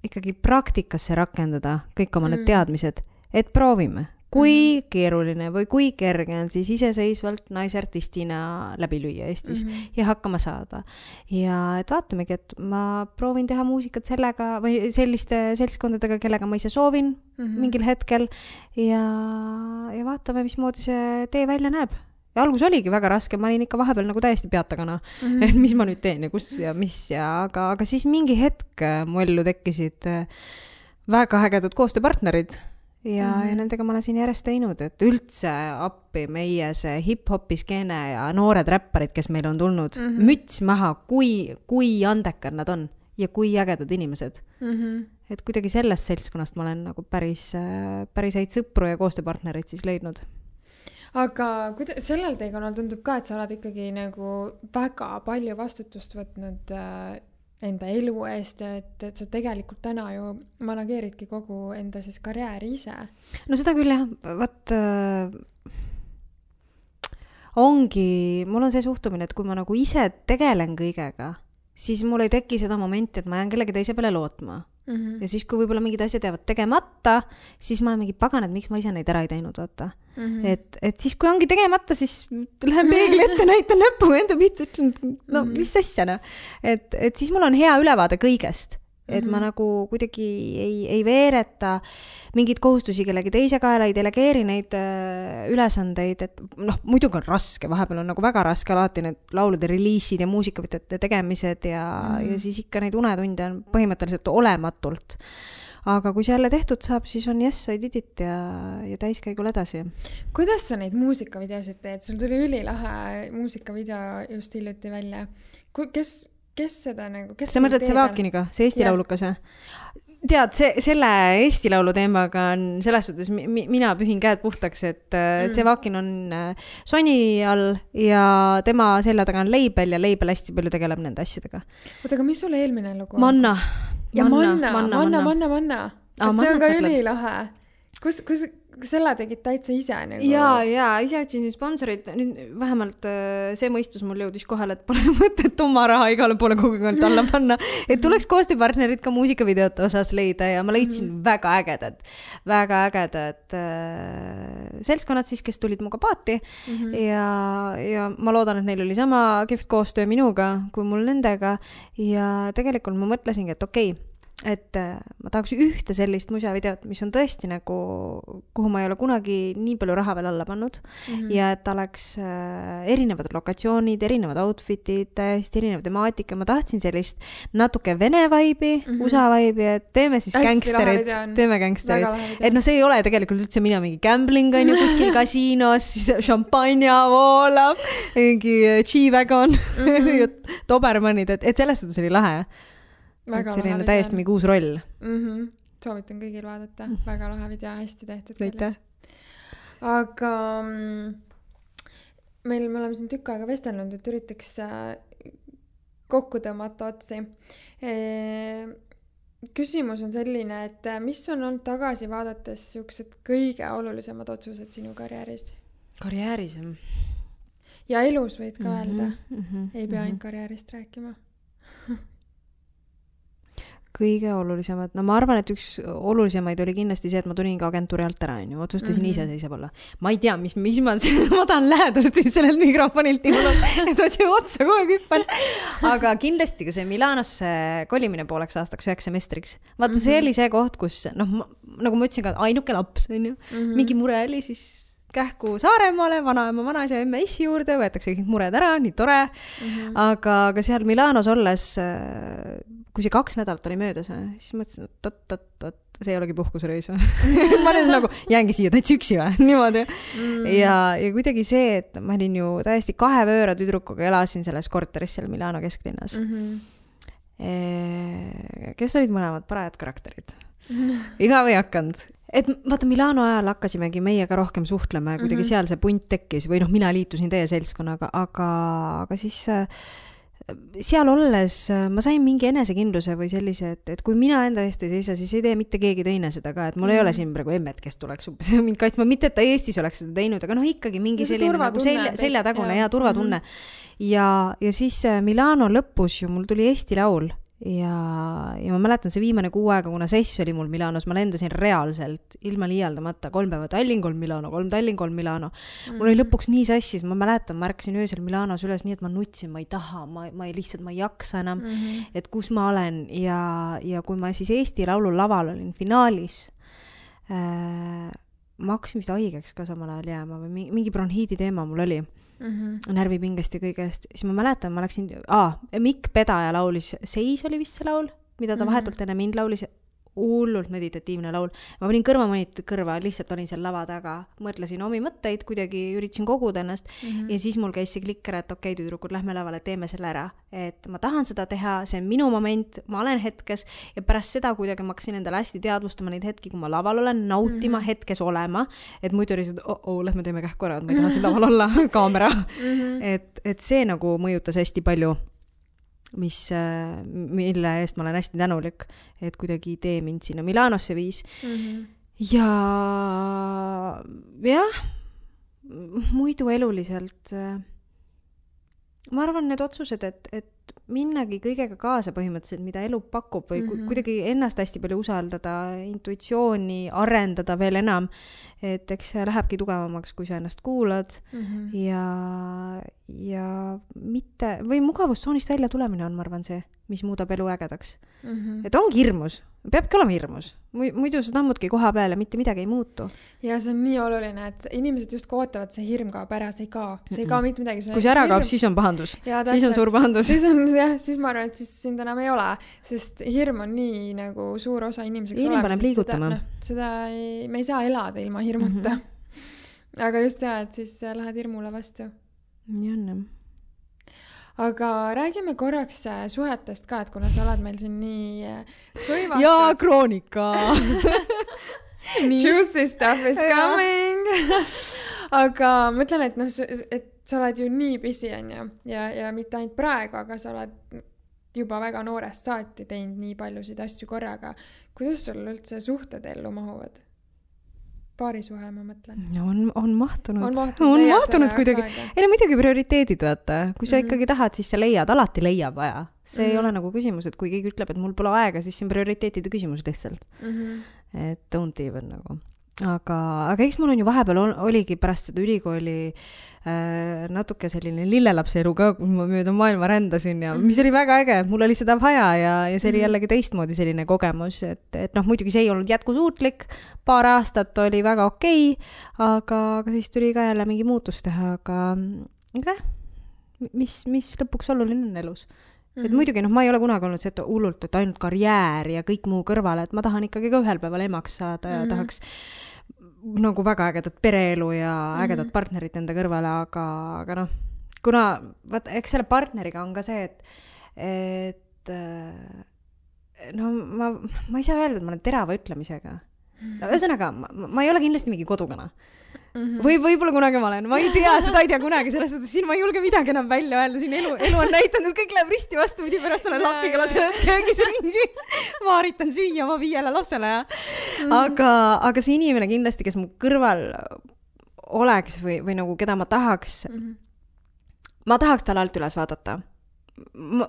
ikkagi praktikasse rakendada kõik oma need teadmised, et proovime, kui keeruline või kui kerge on siis iseseisvalt naisartistina läbi lüüa Eestis ja hakkama saada. Ja et vaatamegi, et ma proovin teha muusikat sellega või selliste seltskondadega, kellega ma ise soovin mingil hetkel ja vaatame, mismoodi see tee välja näeb. Ja algus oligi väga raske, ma olin ikka vahepeal nagu täiesti peatagana, et mis ma nüüd teen ja kus ja mis aga siis mingi hetk mu ellu tekkisid väga ägedad koostööpartnerid ja nendega ma olen siin järjest teinud, et üldse appi meie see hip-hopi skeene ja noored räpparid, kes meil on tulnud, müts maha, kui andekad nad on ja kui ägedad inimesed. Et kuidagi sellest seltskonnast ma olen nagu päris häid sõpru ja koostööpartnerid siis leidnud. Aga sellel teekonnal tundub ka, et sa oled ikkagi nagu väga palju vastutust võtnud enda elu eest ja et sa tegelikult täna ju manageeridki kogu enda siis karjääri ise. No seda küll jah, mul on see suhtumine, et kui ma nagu ise tegelen kõigega, siis mul ei teki seda momenti, et ma jään kellegi teise peale lootma. Ja siis, kui võib-olla mingid asjad jäävad tegemata, siis ma olen mingi pagan, et miks ma ise neid ära ei teinud, vaata. Et siis, kui ongi tegemata, siis lähen peegli ette, näitan näpu enda pihta, ütlen, no mis asja, no. Et siis mul on hea ülevaade kõigest. Et ma nagu kuidagi ei veereta mingid kohustusi kellegi teise kaela, ei delegeeri neid ülesandeid, et noh, muidugi on raske, vahepeal on nagu väga raske alati need laulude reliisid ja muusikavõtete tegemised ja siis ikka neid unetunde on põhimõtteliselt olematult. Aga kui see jälle tehtud saab, siis on yes, I did it ja täiskäigul edasi. Kuidas sa neid muusikavideosid teed? Sul tuli ülilahe muusikavideo just hiljuti välja. Kes seda nagu... Sa mõtled see Vaakiniga, see Eesti laulukas? Tead, selle Eesti laulu teemaga on selles suhtes, mina pühin käed puhtaks, et see Vaakin on Sony all ja tema selle taga on Label ja Label hästi palju tegeleb nende asjadega. Oota, aga mis sulle eelmine lugu? Manna. Ja Manna. See on ka ülilahe. Kus selle tegid täitsa ise? Nagu... Ja, ise otsin sponsorit. Nüüd vähemalt see mõistus mul jõudis kohale, et pole mõtet oma raha igale poole kogukond alla panna. Et tuleks koostööpartnerid ka muusikavideote osas leida ja ma leidsin väga ägedad seltskonnad siis, kes tulid muga paati ja ma loodan, et neil oli sama kihvt koostöö minuga kui mul nendega ja tegelikult ma mõtlesingi, et okei, et ma tahaks ühte sellist musavideot, mis on tõesti nagu, kuhu ma ei ole kunagi nii palju raha veel alla pannud ja et oleks erinevad lokatsioonid, erinevad outfitid, täiesti erinev temaatika. Ma tahtsin sellist natuke vene vaibi, USA vaibi, et teeme siis gangsterid. Et no see ei ole tegelikult üldse mina mingi gambling on ju kuskil kasiinos, siis šampanja voolab, mingi G-Wagon, Dobermanid, et selles suhtes oli lahe. Väga et selline täiesti mingi uus roll. Soovitan kõigil vaadata. Väga lahe video, hästi tehtud. Aitäh. Aga me oleme siin tükk aega vestelnud, et üritaks kokku tõmmata otsi. Küsimus on selline, et mis on olnud tagasi vaadates siuksed kõige olulisemad otsused sinu karjääris? Karjääris? Ja elus võid ka öelda. Ei pea ainult karjäärist rääkima. Kõige olulisemad. No ma arvan, et üks olulisemaid oli kindlasti see, et ma tulin ka agentuuri alt ära. Otsustasin ise seisab olla. Ma ei tea, mis ma tahan lähedust sellel mikrofonilt, et see otsa kogu aeg hüppan. Aga kindlasti ka see Milanosse kolimine pooleks aastaks 9 semestriks. Vaata, see oli see koht, kus, nagu ma ütlesin ka, ainuke laps, mingi mure oli siis kähku Saaremaale, vanaema, vanaisa, emme issi juurde, võetakse kõik mured ära, nii tore. Aga seal Milanos olles, kui see 2 nädalat oli möödas, siis mõtlesin, et see ei olegi puhkusreis. Ma olen nagu, jäängi siia täitsa üksi või, niimoodi. Ja kuidagi see, et ma olin ju täiesti 2 vööra tüdrukuga, elasin selles korteris seal Milano kesklinnas. Kes olid mõlemad parajad karakterid? Igav ei hakanud. Et vaata, Milano ajal hakkasimegi meiega rohkem suhtlema ja kuidagi seal see punt tekkis või mina liitusin teie seltskonnaga, aga siis seal olles ma sain mingi enesekindluse või sellise, et kui mina enda eest ei seisa, siis ei tee mitte keegi teine seda ka, et mul ei ole siin praegu emmet, kes tuleks mind kaitsma, mitte et ta Eestis oleks seda teinud, aga ikkagi mingi selline nagu seljatagune ja turvatunne. Ja siis Milano lõpus ju mul tuli Eesti laul ja ma mäletan see viimane 6 aega, kuna sess oli mul Milanos, ma lendasin reaalselt ilma liialdamata 3 päeva Tallinn, 3 Milano, 3 Tallinn, 3 Milano. Mul oli lõpuks nii sassis, ma mäletan, ma ärkasin öösel Milanos üles nii, et ma nutsin, ma ei taha, ma ei jaksa enam, et kus ma olen ja kui ma siis Eesti laulu laval olin finaalis, ma hakkasin vist haigeks ka samal ajal jääma või mingi bronhiidi teema mul oli. Närvipingest ja kõigest, siis ma mäletan, ma läksin, Mikk Pedaja laulis, Seis oli vist see laul, mida ta vahetult enne mind laulis, hullult meditatiivne laul. Ma panin kõrvamonitid kõrva, lihtsalt olin seal lava taga, mõtlesin omi mõtteid, kuidagi üritasin koguda ennast ja siis mul käis see klikk ära, et okei, tüdrukud, lähme lavale, teeme selle ära. Et ma tahan seda teha, see on minu moment, ma olen hetkes ja pärast seda kuidagi ma hakkasin endale hästi teadvustama neid hetki, kui ma laval olen, nautima hetkes olema, et muidu oli see, lähme teeme kähku ära, et ma ei taha siin laval olla, kaamera. Et see nagu mõjutas hästi palju, mille eest ma olen hästi tänulik, et kuidagi idee mind sinna Milanosse viis. Ja muidu eluliselt ma arvan need otsused, et minnagi kõigega kaasa põhimõtteliselt, mida elu pakub või kuidagi ennast hästi palju usaldada, intuitsiooni arendada veel enam, et eks see lähebki tugevamaks, kui sa ennast kuulad ja mitte, või mugavustsoonist välja tulemine on, ma arvan, see, mis muudab elu ägedaks. Et ongi hirmus, peabki olema hirmus, muidu sa tammudki koha peale, mitte midagi ei muutu. Ja see on nii oluline, et inimesed just kootavad, see hirm kaob ära, see ei kao mitte midagi. Kui see ära kaob, siis on pahandus, siis on suur pahandus. Siis ma arvan, et siis sind enam ei ole, sest hirm on nii nagu suur osa inimeseks inimene paneb liigutama. Me ei saa elada ilma hirmuta. Aga just et siis lähed hirmule vastu. Nii on. Aga räägime korraks suhetest ka, et kuna sa oled meil siin nii hõivatud. Jaa, kroonika! Juicy stuff is coming! Aga mõtlen, et sa oled ju nii busy, on ju, ja mitte ainult praegu, aga sa oled juba väga noorest saati teinud nii paljusid asju korraga. Kuidas sul üldse suhted ellu mahuvad? Paarisuhe, ma mõtlen. On mahtunud kuidagi. Ei, muidugi prioriteedid, vaata. Kui sa ikkagi tahad, siis sa leiad, alati leiab vaja. See ei ole nagu küsimus, et kui keegi ütleb, et mul pole aega, siis see on prioriteetide küsimus lihtsalt. Et don't even nagu. Aga eks mul on ju vahepeal oligi pärast seda ülikooli natuke selline lillelapse elu ka, kui ma mööda maailma rändasin ja mis oli väga äge, mul oli seda vaja ja see oli jällegi teistmoodi selline kogemus, et muidugi see ei olnud jätkusuutlik, paar aastat oli väga okei, aga siis tuli ka jälle mingi muutus teha, aga mis lõpuks oluline on elus. Et muidugi, ma ei ole kunagi olnud see, et hullult, et ainult karjäär ja kõik muu kõrvale, et ma tahan ikkagi ka ühel päeval emaks saada ja tahaks nagu väga ägedat pereelu ja ägedat partnerit enda kõrvale, aga kuna, eks selle partneriga on ka see, et ma ei saa öelda, et ma olen terava ütlemisega. Ühesõnaga, ma ei ole kindlasti mingi kodukana. Või võib-olla kunagi ma olen, ma ei tea, seda ei tea kunagi, sellest, et siin ma ei julge midagi enam välja öelda, siin elu on näitanud, et kõik läheb risti vastu, pidi pärast olen lapiga lasen köögis ringi, vaaritan süüa oma 5 lapsele. Aga see inimene kindlasti, kes mu kõrval oleks või nagu keda ma tahaks talle alt üles vaadata.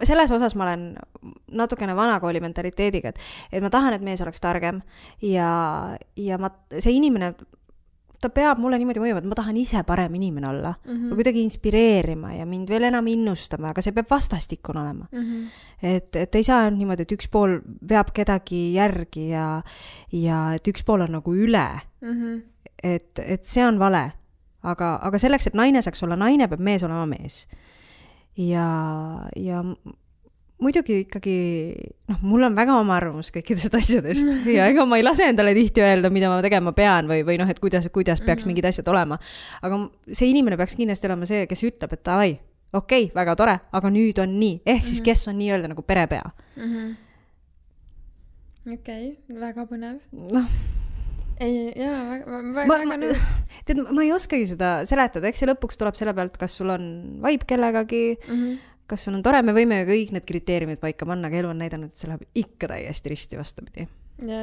Selles osas ma olen natukene vanakooli mentaliteediga, et ma tahan, et mees oleks targem ja see inimene ta peab mulle niimoodi mõjuma, et ma tahan ise parem inimene olla või kuidagi inspireerima ja mind veel enam innustama, aga see peab vastastikun olema. Et ei saa niimoodi, et üks pool veab kedagi järgi ja et üks pool on nagu üle. Et see on vale. Aga selleks, et naine saaks olla naine, peab mees olema mees. Ja muidugi ikkagi, mul on väga oma arvamus kõikidest asjadest ja ega ma ei lase endale tihti öelda, mida ma tegema pean või et kuidas peaks mingid asjad olema. Aga see inimene peaks kindlasti olema see, kes ütleb, et davai, okei, väga tore, aga nüüd on nii. Ehk siis kes on nii öelda nagu perepea. Okei, väga põnev. Ei, väga nõus. Tead, ma ei oskagi seda seletada, eks see lõpuks tuleb selle pealt, kas sul on vibe kellegagi, kas sul on tore, me võime ju kõik need kriteeriumid paika panna, aga elu on näidanud, et see läheb ikka täiesti risti vastupidi. Ja.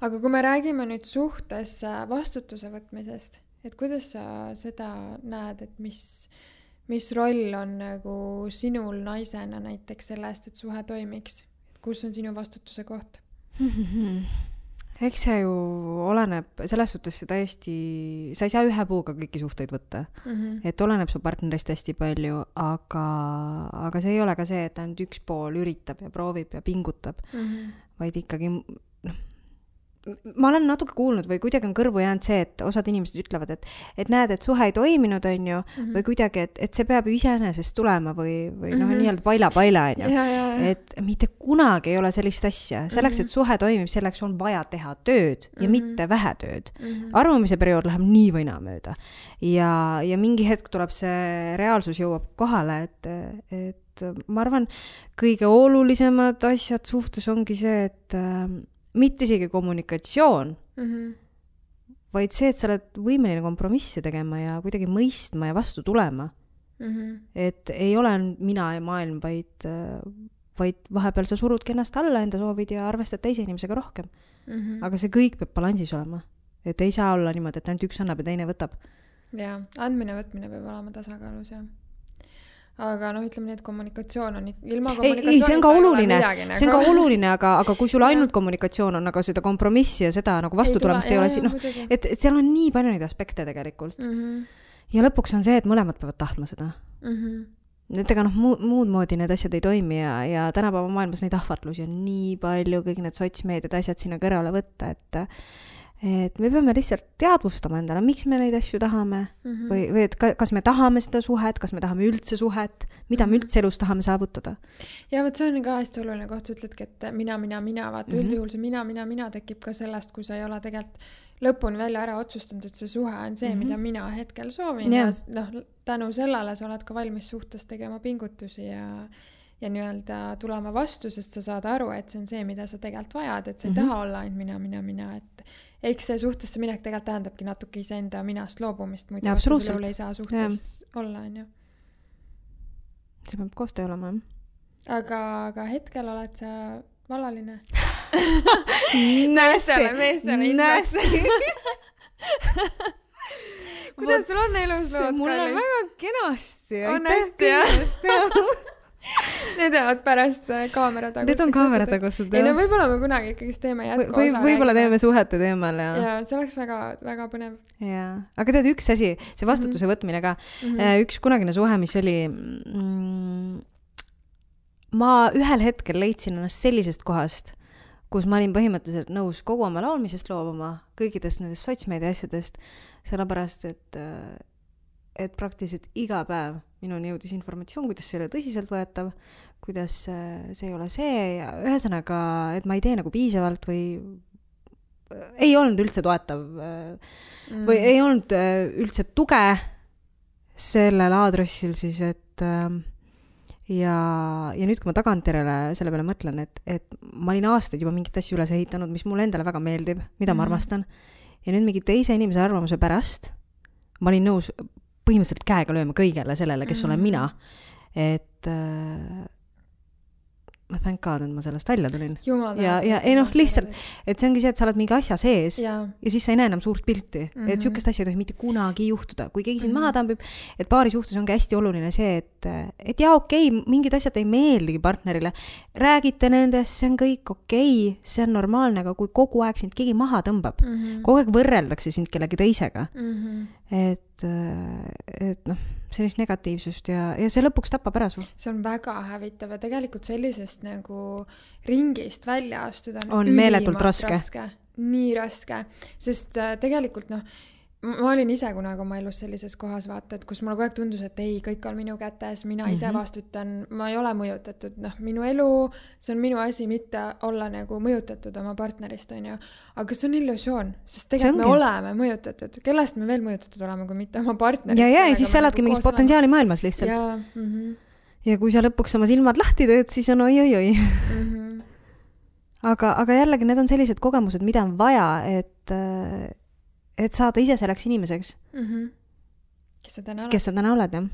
Aga kui me räägime nüüd suhtes vastutuse võtmisest, et kuidas sa seda näed, et mis roll on nagu sinul naisena näiteks sellest, et suhe toimiks? Kus on sinu vastutuse koht? Eks see ju oleneb, selles suhtes see täiesti, sa ei saa ühe puuga kõiki suhteid võtta. Et oleneb su partnerist hästi palju, aga see ei ole ka see, et ainult üks pool üritab ja proovib ja pingutab, vaid ikkagi, ma olen natuke kuulnud või kuidagi on kõrvu jäänud see, et osad inimesed ütlevad, et näed, et suhe ei toiminud, on ju, või kuidagi, et see peab ju iseenesest tulema või nii-öelda paila, on ju. Et mitte kunagi ei ole sellist asja. Selleks, et suhe toimib, selleks on vaja teha tööd ja mitte vähe tööd. Arvamise periood läheb nii või naa mööda. Ja mingi hetk tuleb see reaalsus jõuab kohale, et ma arvan, kõige olulisemad asjad suhtes ongi see, et mitte isegi kommunikatsioon, vaid see, et sa oled võimeline kompromisse tegema ja kuidagi mõistma ja vastu tulema. Et ei ole mina ja maailm, vaid vahepeal sa surudki ennast alla enda soovid ja arvestad teise inimesega rohkem. Aga see kõik peab balansis olema. Et ei saa olla niimoodi, et ainult üks annab ja teine võtab. Ja, andmine võtmine peab olema tasakaalus, jah. aga noh, ütleme nii, et kommunikatsioon on ilma ei, see on ka oluline, see on ka oluline, aga kui sul ainult kommunikatsioon on, aga seda kompromissi ja seda nagu vastutulemist ei ole, noh, et seal on nii palju neid aspekte tegelikult. Ja lõpuks on see, et mõlemad peavad tahtma seda. Et ega noh, muud moodi need asjad ei toimi ja tänapäeva maailmas neid ahvatlusi on nii palju, kõik need sotsmeediad asjad sinna kõrvale võtta, et me peame lihtsalt teadvustama endale, miks me neid asju tahame või et kas me tahame seda suhet, kas me tahame üldse suhet, mida me üldse elus tahame saavutada. Ja võt see on ka hästi oluline koht, ütledki, et mina, vaata üldjuhul see mina tekib ka sellest, kui sa ei ole tegelikult lõpuni välja ära otsustanud, et see suhe on see, mida mina hetkel soovin ja noh, tänu sellele sa oled ka valmis suhtes tegema pingutusi ja nii-öelda tulema vastu, sest sa saad aru, et see on see, mida sa tegelikult vajad, et sa ei taha olla ainult mina, et eks see suhtesse minek tegelikult tähendabki natuke iseenda minast loobumist, muidu vastusel ei saa suhtes olla, on ju. See peab koostöö olema. Aga hetkel oled sa vallaline. Nästi. Kuidas sul on elus lood? Mul on väga kenasti. On hästi, jah? Need jäävad pärast kaamera tagust. Need on kaamera tagustud, jah. Ei, no võib-olla me kunagi ikkagi teeme jätku osa. Võib-olla teeme suhete teemal, jah. Ja see oleks väga, väga põnev. Ja. Aga tead, üks asi, see vastutuse võtmine ka. Üks kunagine suhe, mis oli... Ma ühel hetkel leidsin ennast sellisest kohast, kus ma olin põhimõtteliselt nõus kogu oma laulmisest loobuma, kõikidest nendest sotsmeedia asjadest, sellepärast, et praktiliselt iga päev minuni jõudis informatsioon, kuidas see ei ole tõsiselt võetav, kuidas see ei ole see ja ühesõnaga, et ma ei tee nagu piisavalt või ei olnud üldse toetav või ei olnud üldse tuge sellel aadressil siis, et ja nüüd, kui ma tagantjärele selle peale mõtlen, et ma olin aastaid juba mingit asju üles ehitanud, mis mulle endale väga meeldib, mida ma armastan ja nüüd mingi teise inimese arvamuse pärast ma olin nõus põhimõtteliselt käega lööma kõigele sellele, kes olen mina. Et ma thank God, et ma sellest välja tulin. Ja ei noh, lihtsalt, et see ongi see, et sa oled mingi asja sees ja siis sa ei näe enam suurt pilti. Et sükest asja ei tohi mitte kunagi juhtuda. Kui keegi sind maha tambib, et paari suhtes ongi hästi oluline see, et jaa, okei, mingid asjad ei meeldigi partnerile. Räägite nendest, see on kõik okei, see on normaalne, aga kui kogu aeg sind keegi maha tõmbab, kogu aeg võrreldakse sind kellegi teisega, et noh, sellist negatiivsust ja see lõpuks tapab ära su. See on väga hävitav ja tegelikult sellisest nagu ringist välja astuda on meeletult raske. Nii raske, sest tegelikult noh, ma olin ise kunagi oma elus sellises kohas vaata, et kus mulle kogu aeg tundus, et ei, kõik on minu kätes, mina ise vastutan, ma ei ole mõjutatud, noh, minu elu, see on minu asi mitte olla nagu mõjutatud oma partnerist, on ju, aga see on illusioon, sest tegelikult me oleme mõjutatud, kellest me veel mõjutatud oleme, kui mitte oma partnerist. Ja siis sa oledki mingis potentsiaali maailmas lihtsalt. Ja kui sa lõpuks oma silmad lahti teed, siis on oi. Aga jällegi need on sellised kogemused, mida on vaja, et saada ise selleks inimeseks. Kes sa täna oled, jah.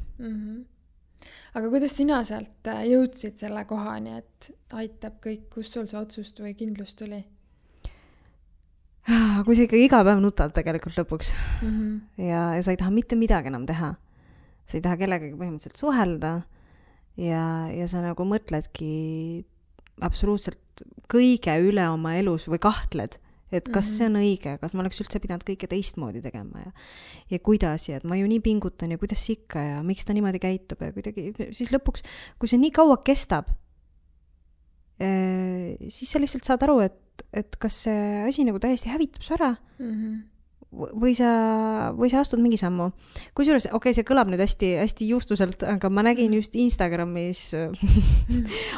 Aga kuidas sina sealt jõudsid selle kohani, et aitab kõik, kust sul see otsust või kindlust tuli? Kui sa ikka iga päev nutad tegelikult lõpuks ja sa ei taha mitte midagi enam teha. Sa ei taha kellegagi põhimõtteliselt suhelda ja sa nagu mõtledki absoluutselt kõige üle oma elus või kahtled, et kas see on õige, kas ma oleks üldse pidanud kõike teistmoodi tegema ja kuidas ja et ma ju nii pingutan ja kuidas ikka ja miks ta niimoodi käitub ja kuidagi, siis lõpuks, kui see nii kaua kestab, siis sa lihtsalt saad aru, et kas see asi nagu täiesti hävitab su ära või sa astud mingi sammu. Kusjuures, okei, see kõlab nüüd hästi, hästi juustuselt, aga ma nägin just Instagramis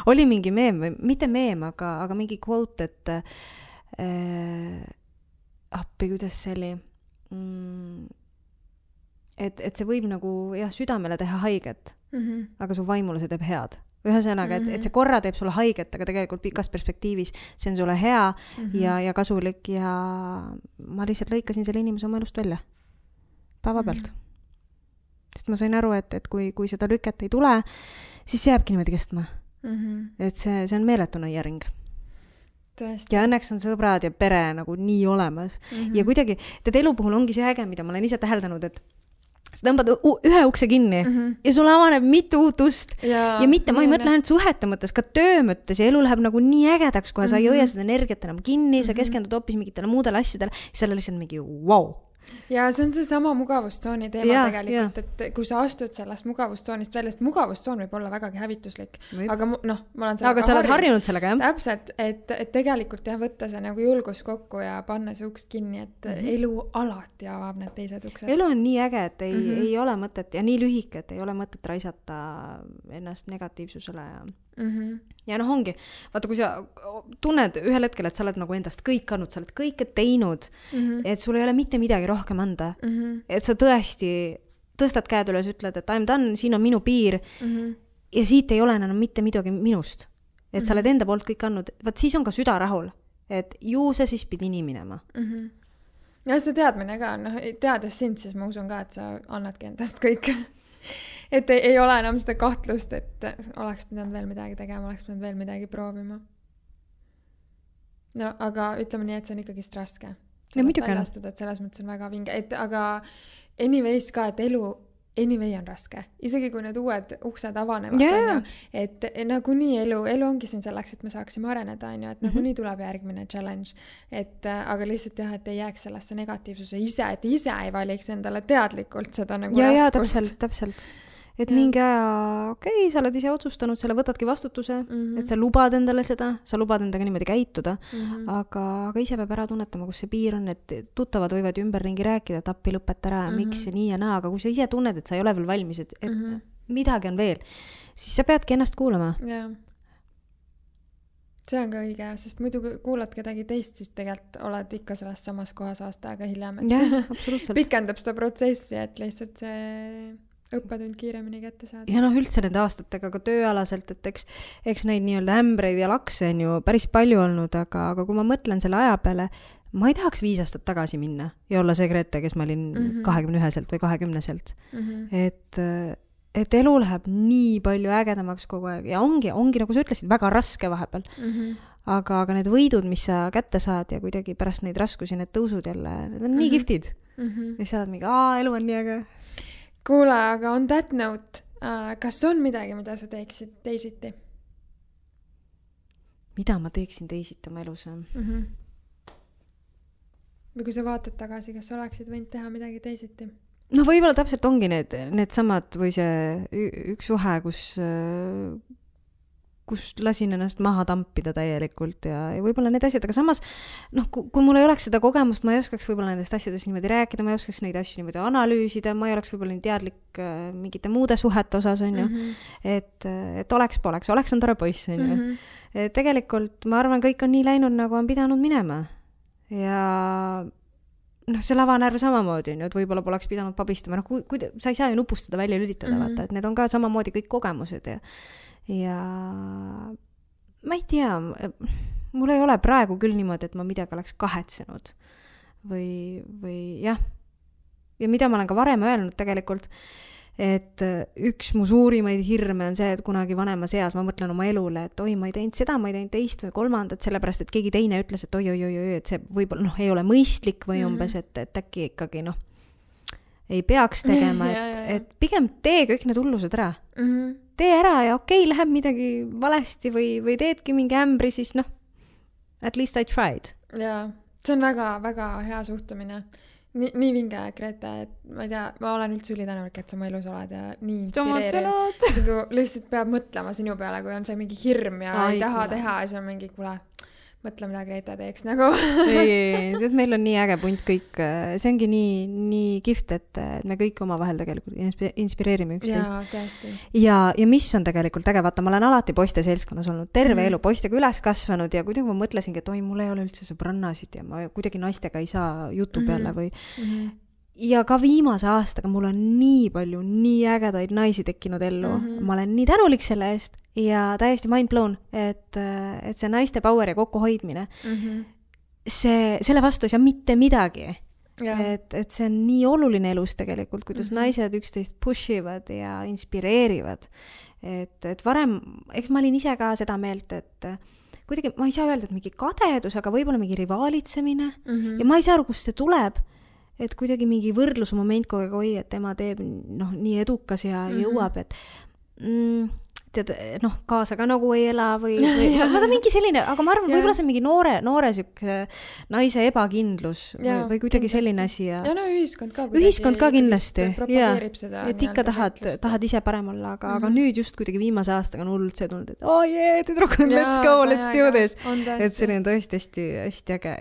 oli mingi meem või mitte meem, aga mingi quote, appi, kuidas see oli et see võib nagu jah, südamele teha haiget aga su vaimule see teeb head ühesõnaga, et see korra teeb sulle haiget, aga tegelikult pikas perspektiivis see on sulle hea ja kasulik ja ma lihtsalt lõikasin selle inimese oma elust välja päevapealt sest ma sain aru, et kui seda lüket ei tule siis see jääbki niimoodi kestma et see on meeletu nõiaring ja õnneks on sõbrad ja pere nagu nii olemas ja kuidagi, tead elu puhul ongi see äge, mida ma olen ise täheldanud, sa tõmbad ühe ukse kinni ja sul avaneb mitu uut ust. Ja mitte, ma ei mõtle ainult suhete mõttes, ka töö mõttes ja elu läheb nagu nii ägedaks, kohe sa ei hoia seda energiat enam kinni, sa keskendud hoopis mingitele muudele asjadele, seal on lihtsalt mingi wow. Ja see on see sama mugavustsooni teema tegelikult, et kui sa astud sellest mugavustsoonist välja, sest mugavustsoon võib olla vägagi hävituslik. Aga ma olen aga sa oled harjunud sellega, jah? Täpselt, et tegelikult võtta see nagu julgus kokku ja panna see uks kinni, et elu alati avab need teised uksed. Elu on nii äge, et ei ole mõtet ja nii lühike, et ei ole mõtet raisata ennast negatiivsusele ja ongi, vaata, kui sa tunned ühel hetkel, et sa oled nagu endast kõik andnud, sa oled kõike teinud, et sul ei ole mitte midagi rohkem anda, et sa tõesti tõstad käed üles, ütled, et I'm done, siin on minu piir ja siit ei ole enam mitte midagi minust, et sa oled enda poolt kõik andnud, vaat siis on ka süda rahul, et ju sa siis pidi nii minema. Ja see teadmine ka, teades sind, siis ma usun ka, et sa annadki endast kõik. Et ei ole enam seda kahtlust, et oleks pidanud veel midagi tegema, oleks pidanud veel midagi proovima. No, aga ütleme nii, et see on ikkagist raske. Sellest väljastuda, et selles mõttes on väga vinge. Aga anyways ka, et elu anyway on raske. Isegi kui need uued uksed avanevad, et nagu nii elu ongi siin selleks, et me saaksime areneda, et nagu nii tuleb järgmine challenge. Aga lihtsalt et ei jääks sellesse negatiivsuse ise, et ise ei valiks endale teadlikult seda nagu raskust. Ja, täpselt. Et mingi aja, sa oled ise otsustanud, selle võtadki vastutuse, et sa lubad endale seda, sa lubad endaga niimoodi käituda, aga ise peab ära tunnetama, kus see piir on, et tuttavad võivad ümberringi rääkida, et appi lõpeta ära, miks ja nii ja naa, aga kui sa ise tunned, et sa ei ole veel valmis, et midagi on veel, siis sa peadki ennast kuulama. Jaa. See on ka õige, sest muidu kuulad kedagi teist, siis tegelikult oled ikka selles samas kohas aasta aega hiljem, et pikendab seda protsessi, et lihtsalt see õppetund kiiremini kätte saada. Ja üldse nende aastatega ka tööalaselt, et eks neid nii-öelda ämbreid ja lakse on ju päris palju olnud, aga kui ma mõtlen selle aja peale, ma ei tahaks 5 aastat tagasi minna ja olla see Grete, kes ma olin 21-selt või 20-selt. Et elu läheb nii palju ägedamaks kogu aeg ja ongi, nagu sa ütlesid, väga raske vahepeal. Aga need võidud, mis sa kätte saad ja kuidagi pärast neid raskusi, need tõusud jälle, need on nii giftid. Ja sa oled mingi, elu on nii äge. Kuule, aga on that note, kas on midagi, mida sa teeksid teisiti? Mida ma teeksin teisiti oma elus? Või kui sa vaatad tagasi, kas sa oleksid võinud teha midagi teisiti? No võib-olla täpselt ongi need samad või see üks suhe, kus lasin ennast maha tampida täielikult ja võib-olla need asjad, aga samas kui mul ei oleks seda kogemust, ma ei oskaks võib-olla nendest asjadest niimoodi rääkida, ma ei oskaks neid asju niimoodi analüüsida, ma ei oleks võib-olla nii teadlik mingite muude suhete osas, on ju, et oleks on tore poiss, on ju. Tegelikult ma arvan, kõik on nii läinud, nagu on pidanud minema ja see lavanärv samamoodi, et võib-olla poleks pidanud pabistama, sa ei saa ju nupustada välja lülitada, vaata, et need on ka samamoodi kõik kogemused ja ma ei tea, mul ei ole praegu küll niimoodi, et ma midagi oleks kahetsenud või jah, ja mida ma olen ka varem öelnud tegelikult, et üks mu suurimaid hirme on see, et kunagi vanemas eas ma mõtlen oma elule, et oi, ma ei teinud seda, ma ei teinud teist või kolmandat, sellepärast, et keegi teine ütles, et oi, et see võib-olla ei ole mõistlik või umbes, et äkki ikkagi ei peaks tegema, et pigem tee kõik need hullused ära. Tee ära ja läheb midagi valesti või teedki mingi ämbri, siis at least I tried. Jaa, see on väga, väga hea suhtumine. Nii vinge, Grete, et ma ei tea, ma olen üldse ülitänulik, et sa mu elus oled ja nii inspireeriv. Lihtsalt peab mõtlema sinu peale, kui on see mingi hirm ja ei taha teha ja see on mingi, kuule, mõtle, mida Grete teeks nagu. ei, meil on nii äge punt kõik. See ongi nii gift, et me kõik omavahel tegelikult inspireerime üksteist. Jaa, tõesti. Ja mis on tegelikult äge, vaata, ma olen alati poiste seltskonnas olnud, terve elu poistega üles kasvanud ja kuidagi ma mõtlesingi, et oi, mul ei ole üldse sõbrannasid ja ma kuidagi naistega ei saa jutu peale või... Ja ka viimase aastaga mul on nii palju, nii ägedaid naisi tekkinud ellu. Ma olen nii tänulik selle eest ja täiesti mind blown, et see naiste power ja kokkuhoidmine, selle vastu ei saa mitte midagi. Et see on nii oluline elus tegelikult, kuidas naised üksteist pushivad ja inspireerivad. Et varem, eks ma olin ise ka seda meelt, et kuidagi, ma ei saa öelda, et mingi kadedus, aga võib-olla mingi rivaalitsemine ja ma ei saa aru, kust see tuleb. et kuidagi mingi võrdlusmoment kogu aeg, oi, et tema teeb nii edukas ja jõuab, et tead, kaasa ka nagu ei ela või ma ta mingi selline, aga ma arvan, võib-olla see mingi noore siuke naise ebakindlus või kuidagi selline asi ja ühiskond ka kindlasti propageerib seda. Et ikka tahad ise parem olla, aga nüüd just kuidagi viimase aastaga on hullult see tulnud, et tüdrukud, let's go, let's do this. Et see on tõesti hästi äge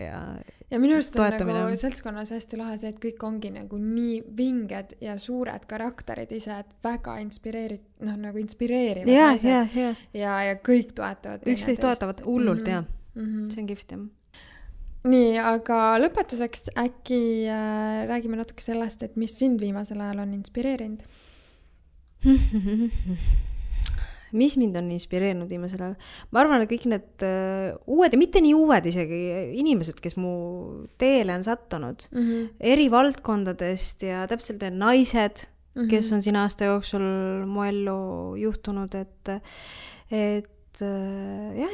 ja minu arust on nagu seltskonnas hästi lahe see, et kõik ongi nagu nii vinged ja suured karakterid ise, et väga inspireerivad naised. Ja kõik toetavad. Üksteist toetavad hullult, see on kihvt, Nii, aga lõpetuseks äkki räägime natuke sellest, et mis sind viimasel ajal on inspireerinud? Mis mind on inspireerinud viimasel ajal? Ma arvan, et kõik need uued ja mitte nii uued isegi inimesed, kes mu teele on sattunud eri valdkondadest ja täpselt need naised, kes on siin aasta jooksul mu ellu juhtunud, et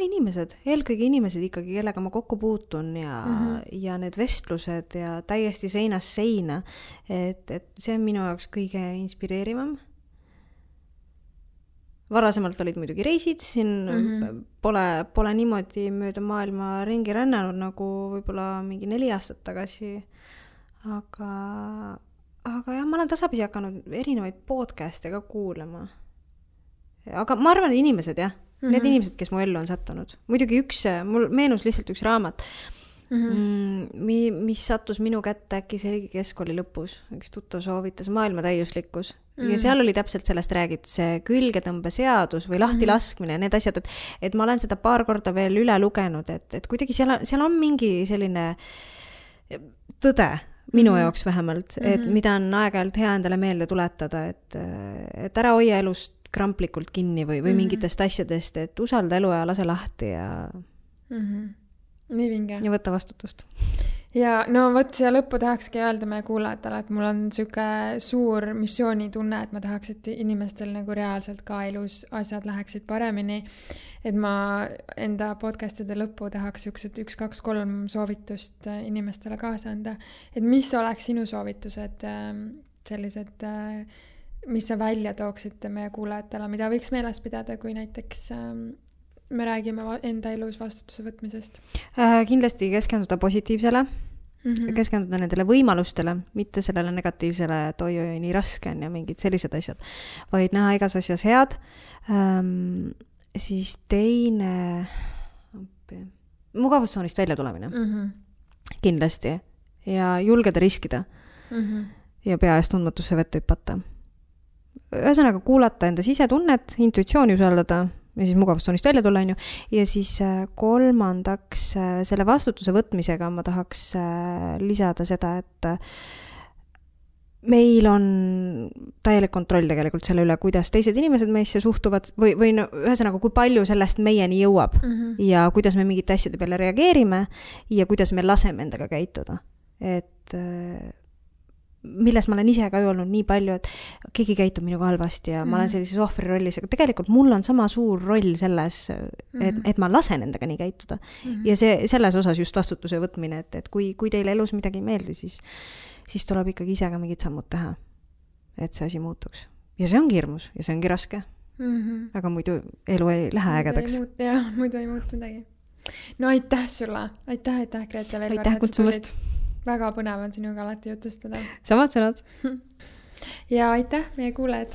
inimesed, eelkõige inimesed ikkagi, kellega ma kokku puutun ja need vestlused ja täiesti seinast seina, et see on minu jaoks kõige inspireerivam. Varasemalt olid muidugi reisid, siin pole niimoodi mööda maailma ringi rännanud nagu võib-olla mingi 4 aastat tagasi, aga jah, ma olen tasapisi hakanud erinevaid podcast'e ka kuulama. Aga ma arvan, et inimesed need inimesed, kes mu ellu on sattunud. Muidugi mul meenus lihtsalt üks raamat, mis sattus minu kätte äkki see oligi keskkooli lõpus, üks tuttav soovitas Maailma täiuslikkus ja seal oli täpselt sellest räägitud, see külgetõmbeseadus või lahtilaskmine ja need asjad, et ma olen seda paar korda veel üle lugenud, et kuidagi seal on mingi selline tõde minu jaoks vähemalt, et mida on aeg-ajalt hea endale meelde tuletada, et ära hoia elust kramplikult kinni või mingitest asjadest, et usalda elu ja lase lahti ja nii vinge. Ja võtta vastutust. Ja vot siia lõppu tahakski öelda meie kuulajatele, et mul on siuke suur missioonitunne, et ma tahaks, et inimestel nagu reaalselt ka elus asjad läheksid paremini. Et ma enda podcastide lõppu tahaks siuksed 1, 2, 3 soovitust inimestele kaasa anda. Et mis oleks sinu soovitused sellised, mis sa välja tooksid meie kuulajatele, mida võiks meeles pidada, kui näiteks me räägime enda elus vastutuse võtmisest? Kindlasti keskenduda positiivsele, keskenduda nendele võimalustele, mitte sellele negatiivsele, et oi, nii raske on ja mingid sellised asjad, vaid näha igas asjas head. Siis teine mugavustsoonist välja tulemine. Kindlasti. Ja julgeda riskida. Ja pea ees tundmatusse vette hüpata. Ühesõnaga kuulata enda sisetunnet, intuitsiooni usaldada ja siis mugavustsoonist välja tulla, on ju. Ja siis kolmandaks selle vastutuse võtmisega ma tahaks lisada seda, et meil on täielik kontroll tegelikult selle üle, kuidas teised inimesed meisse suhtuvad või ühesõnaga, kui palju sellest meieni jõuab ja kuidas me mingite asjade peale reageerime ja kuidas me laseme endaga käituda. Et milles ma olen ise ka olnud nii palju, et keegi käitub minuga halvasti ja ma olen sellises ohvri rollis, aga tegelikult mul on sama suur roll selles, et ma lasen endaga nii käituda. Ja selles osas just vastutuse võtmine, et kui teile elus midagi ei meeldi, siis tuleb ikkagi ise ka mingid sammud teha, et see asi muutuks. Ja see ongi hirmus ja see ongi raske. Aga muidu elu ei lähe ägedaks. Muidu ei muutu midagi. No aitäh sulle. Aitäh, Grete, veel aitäh kutsumast. Väga põnev on sinuga alati jutustada. Samad sõnad. Ja aitäh meie kuulajad.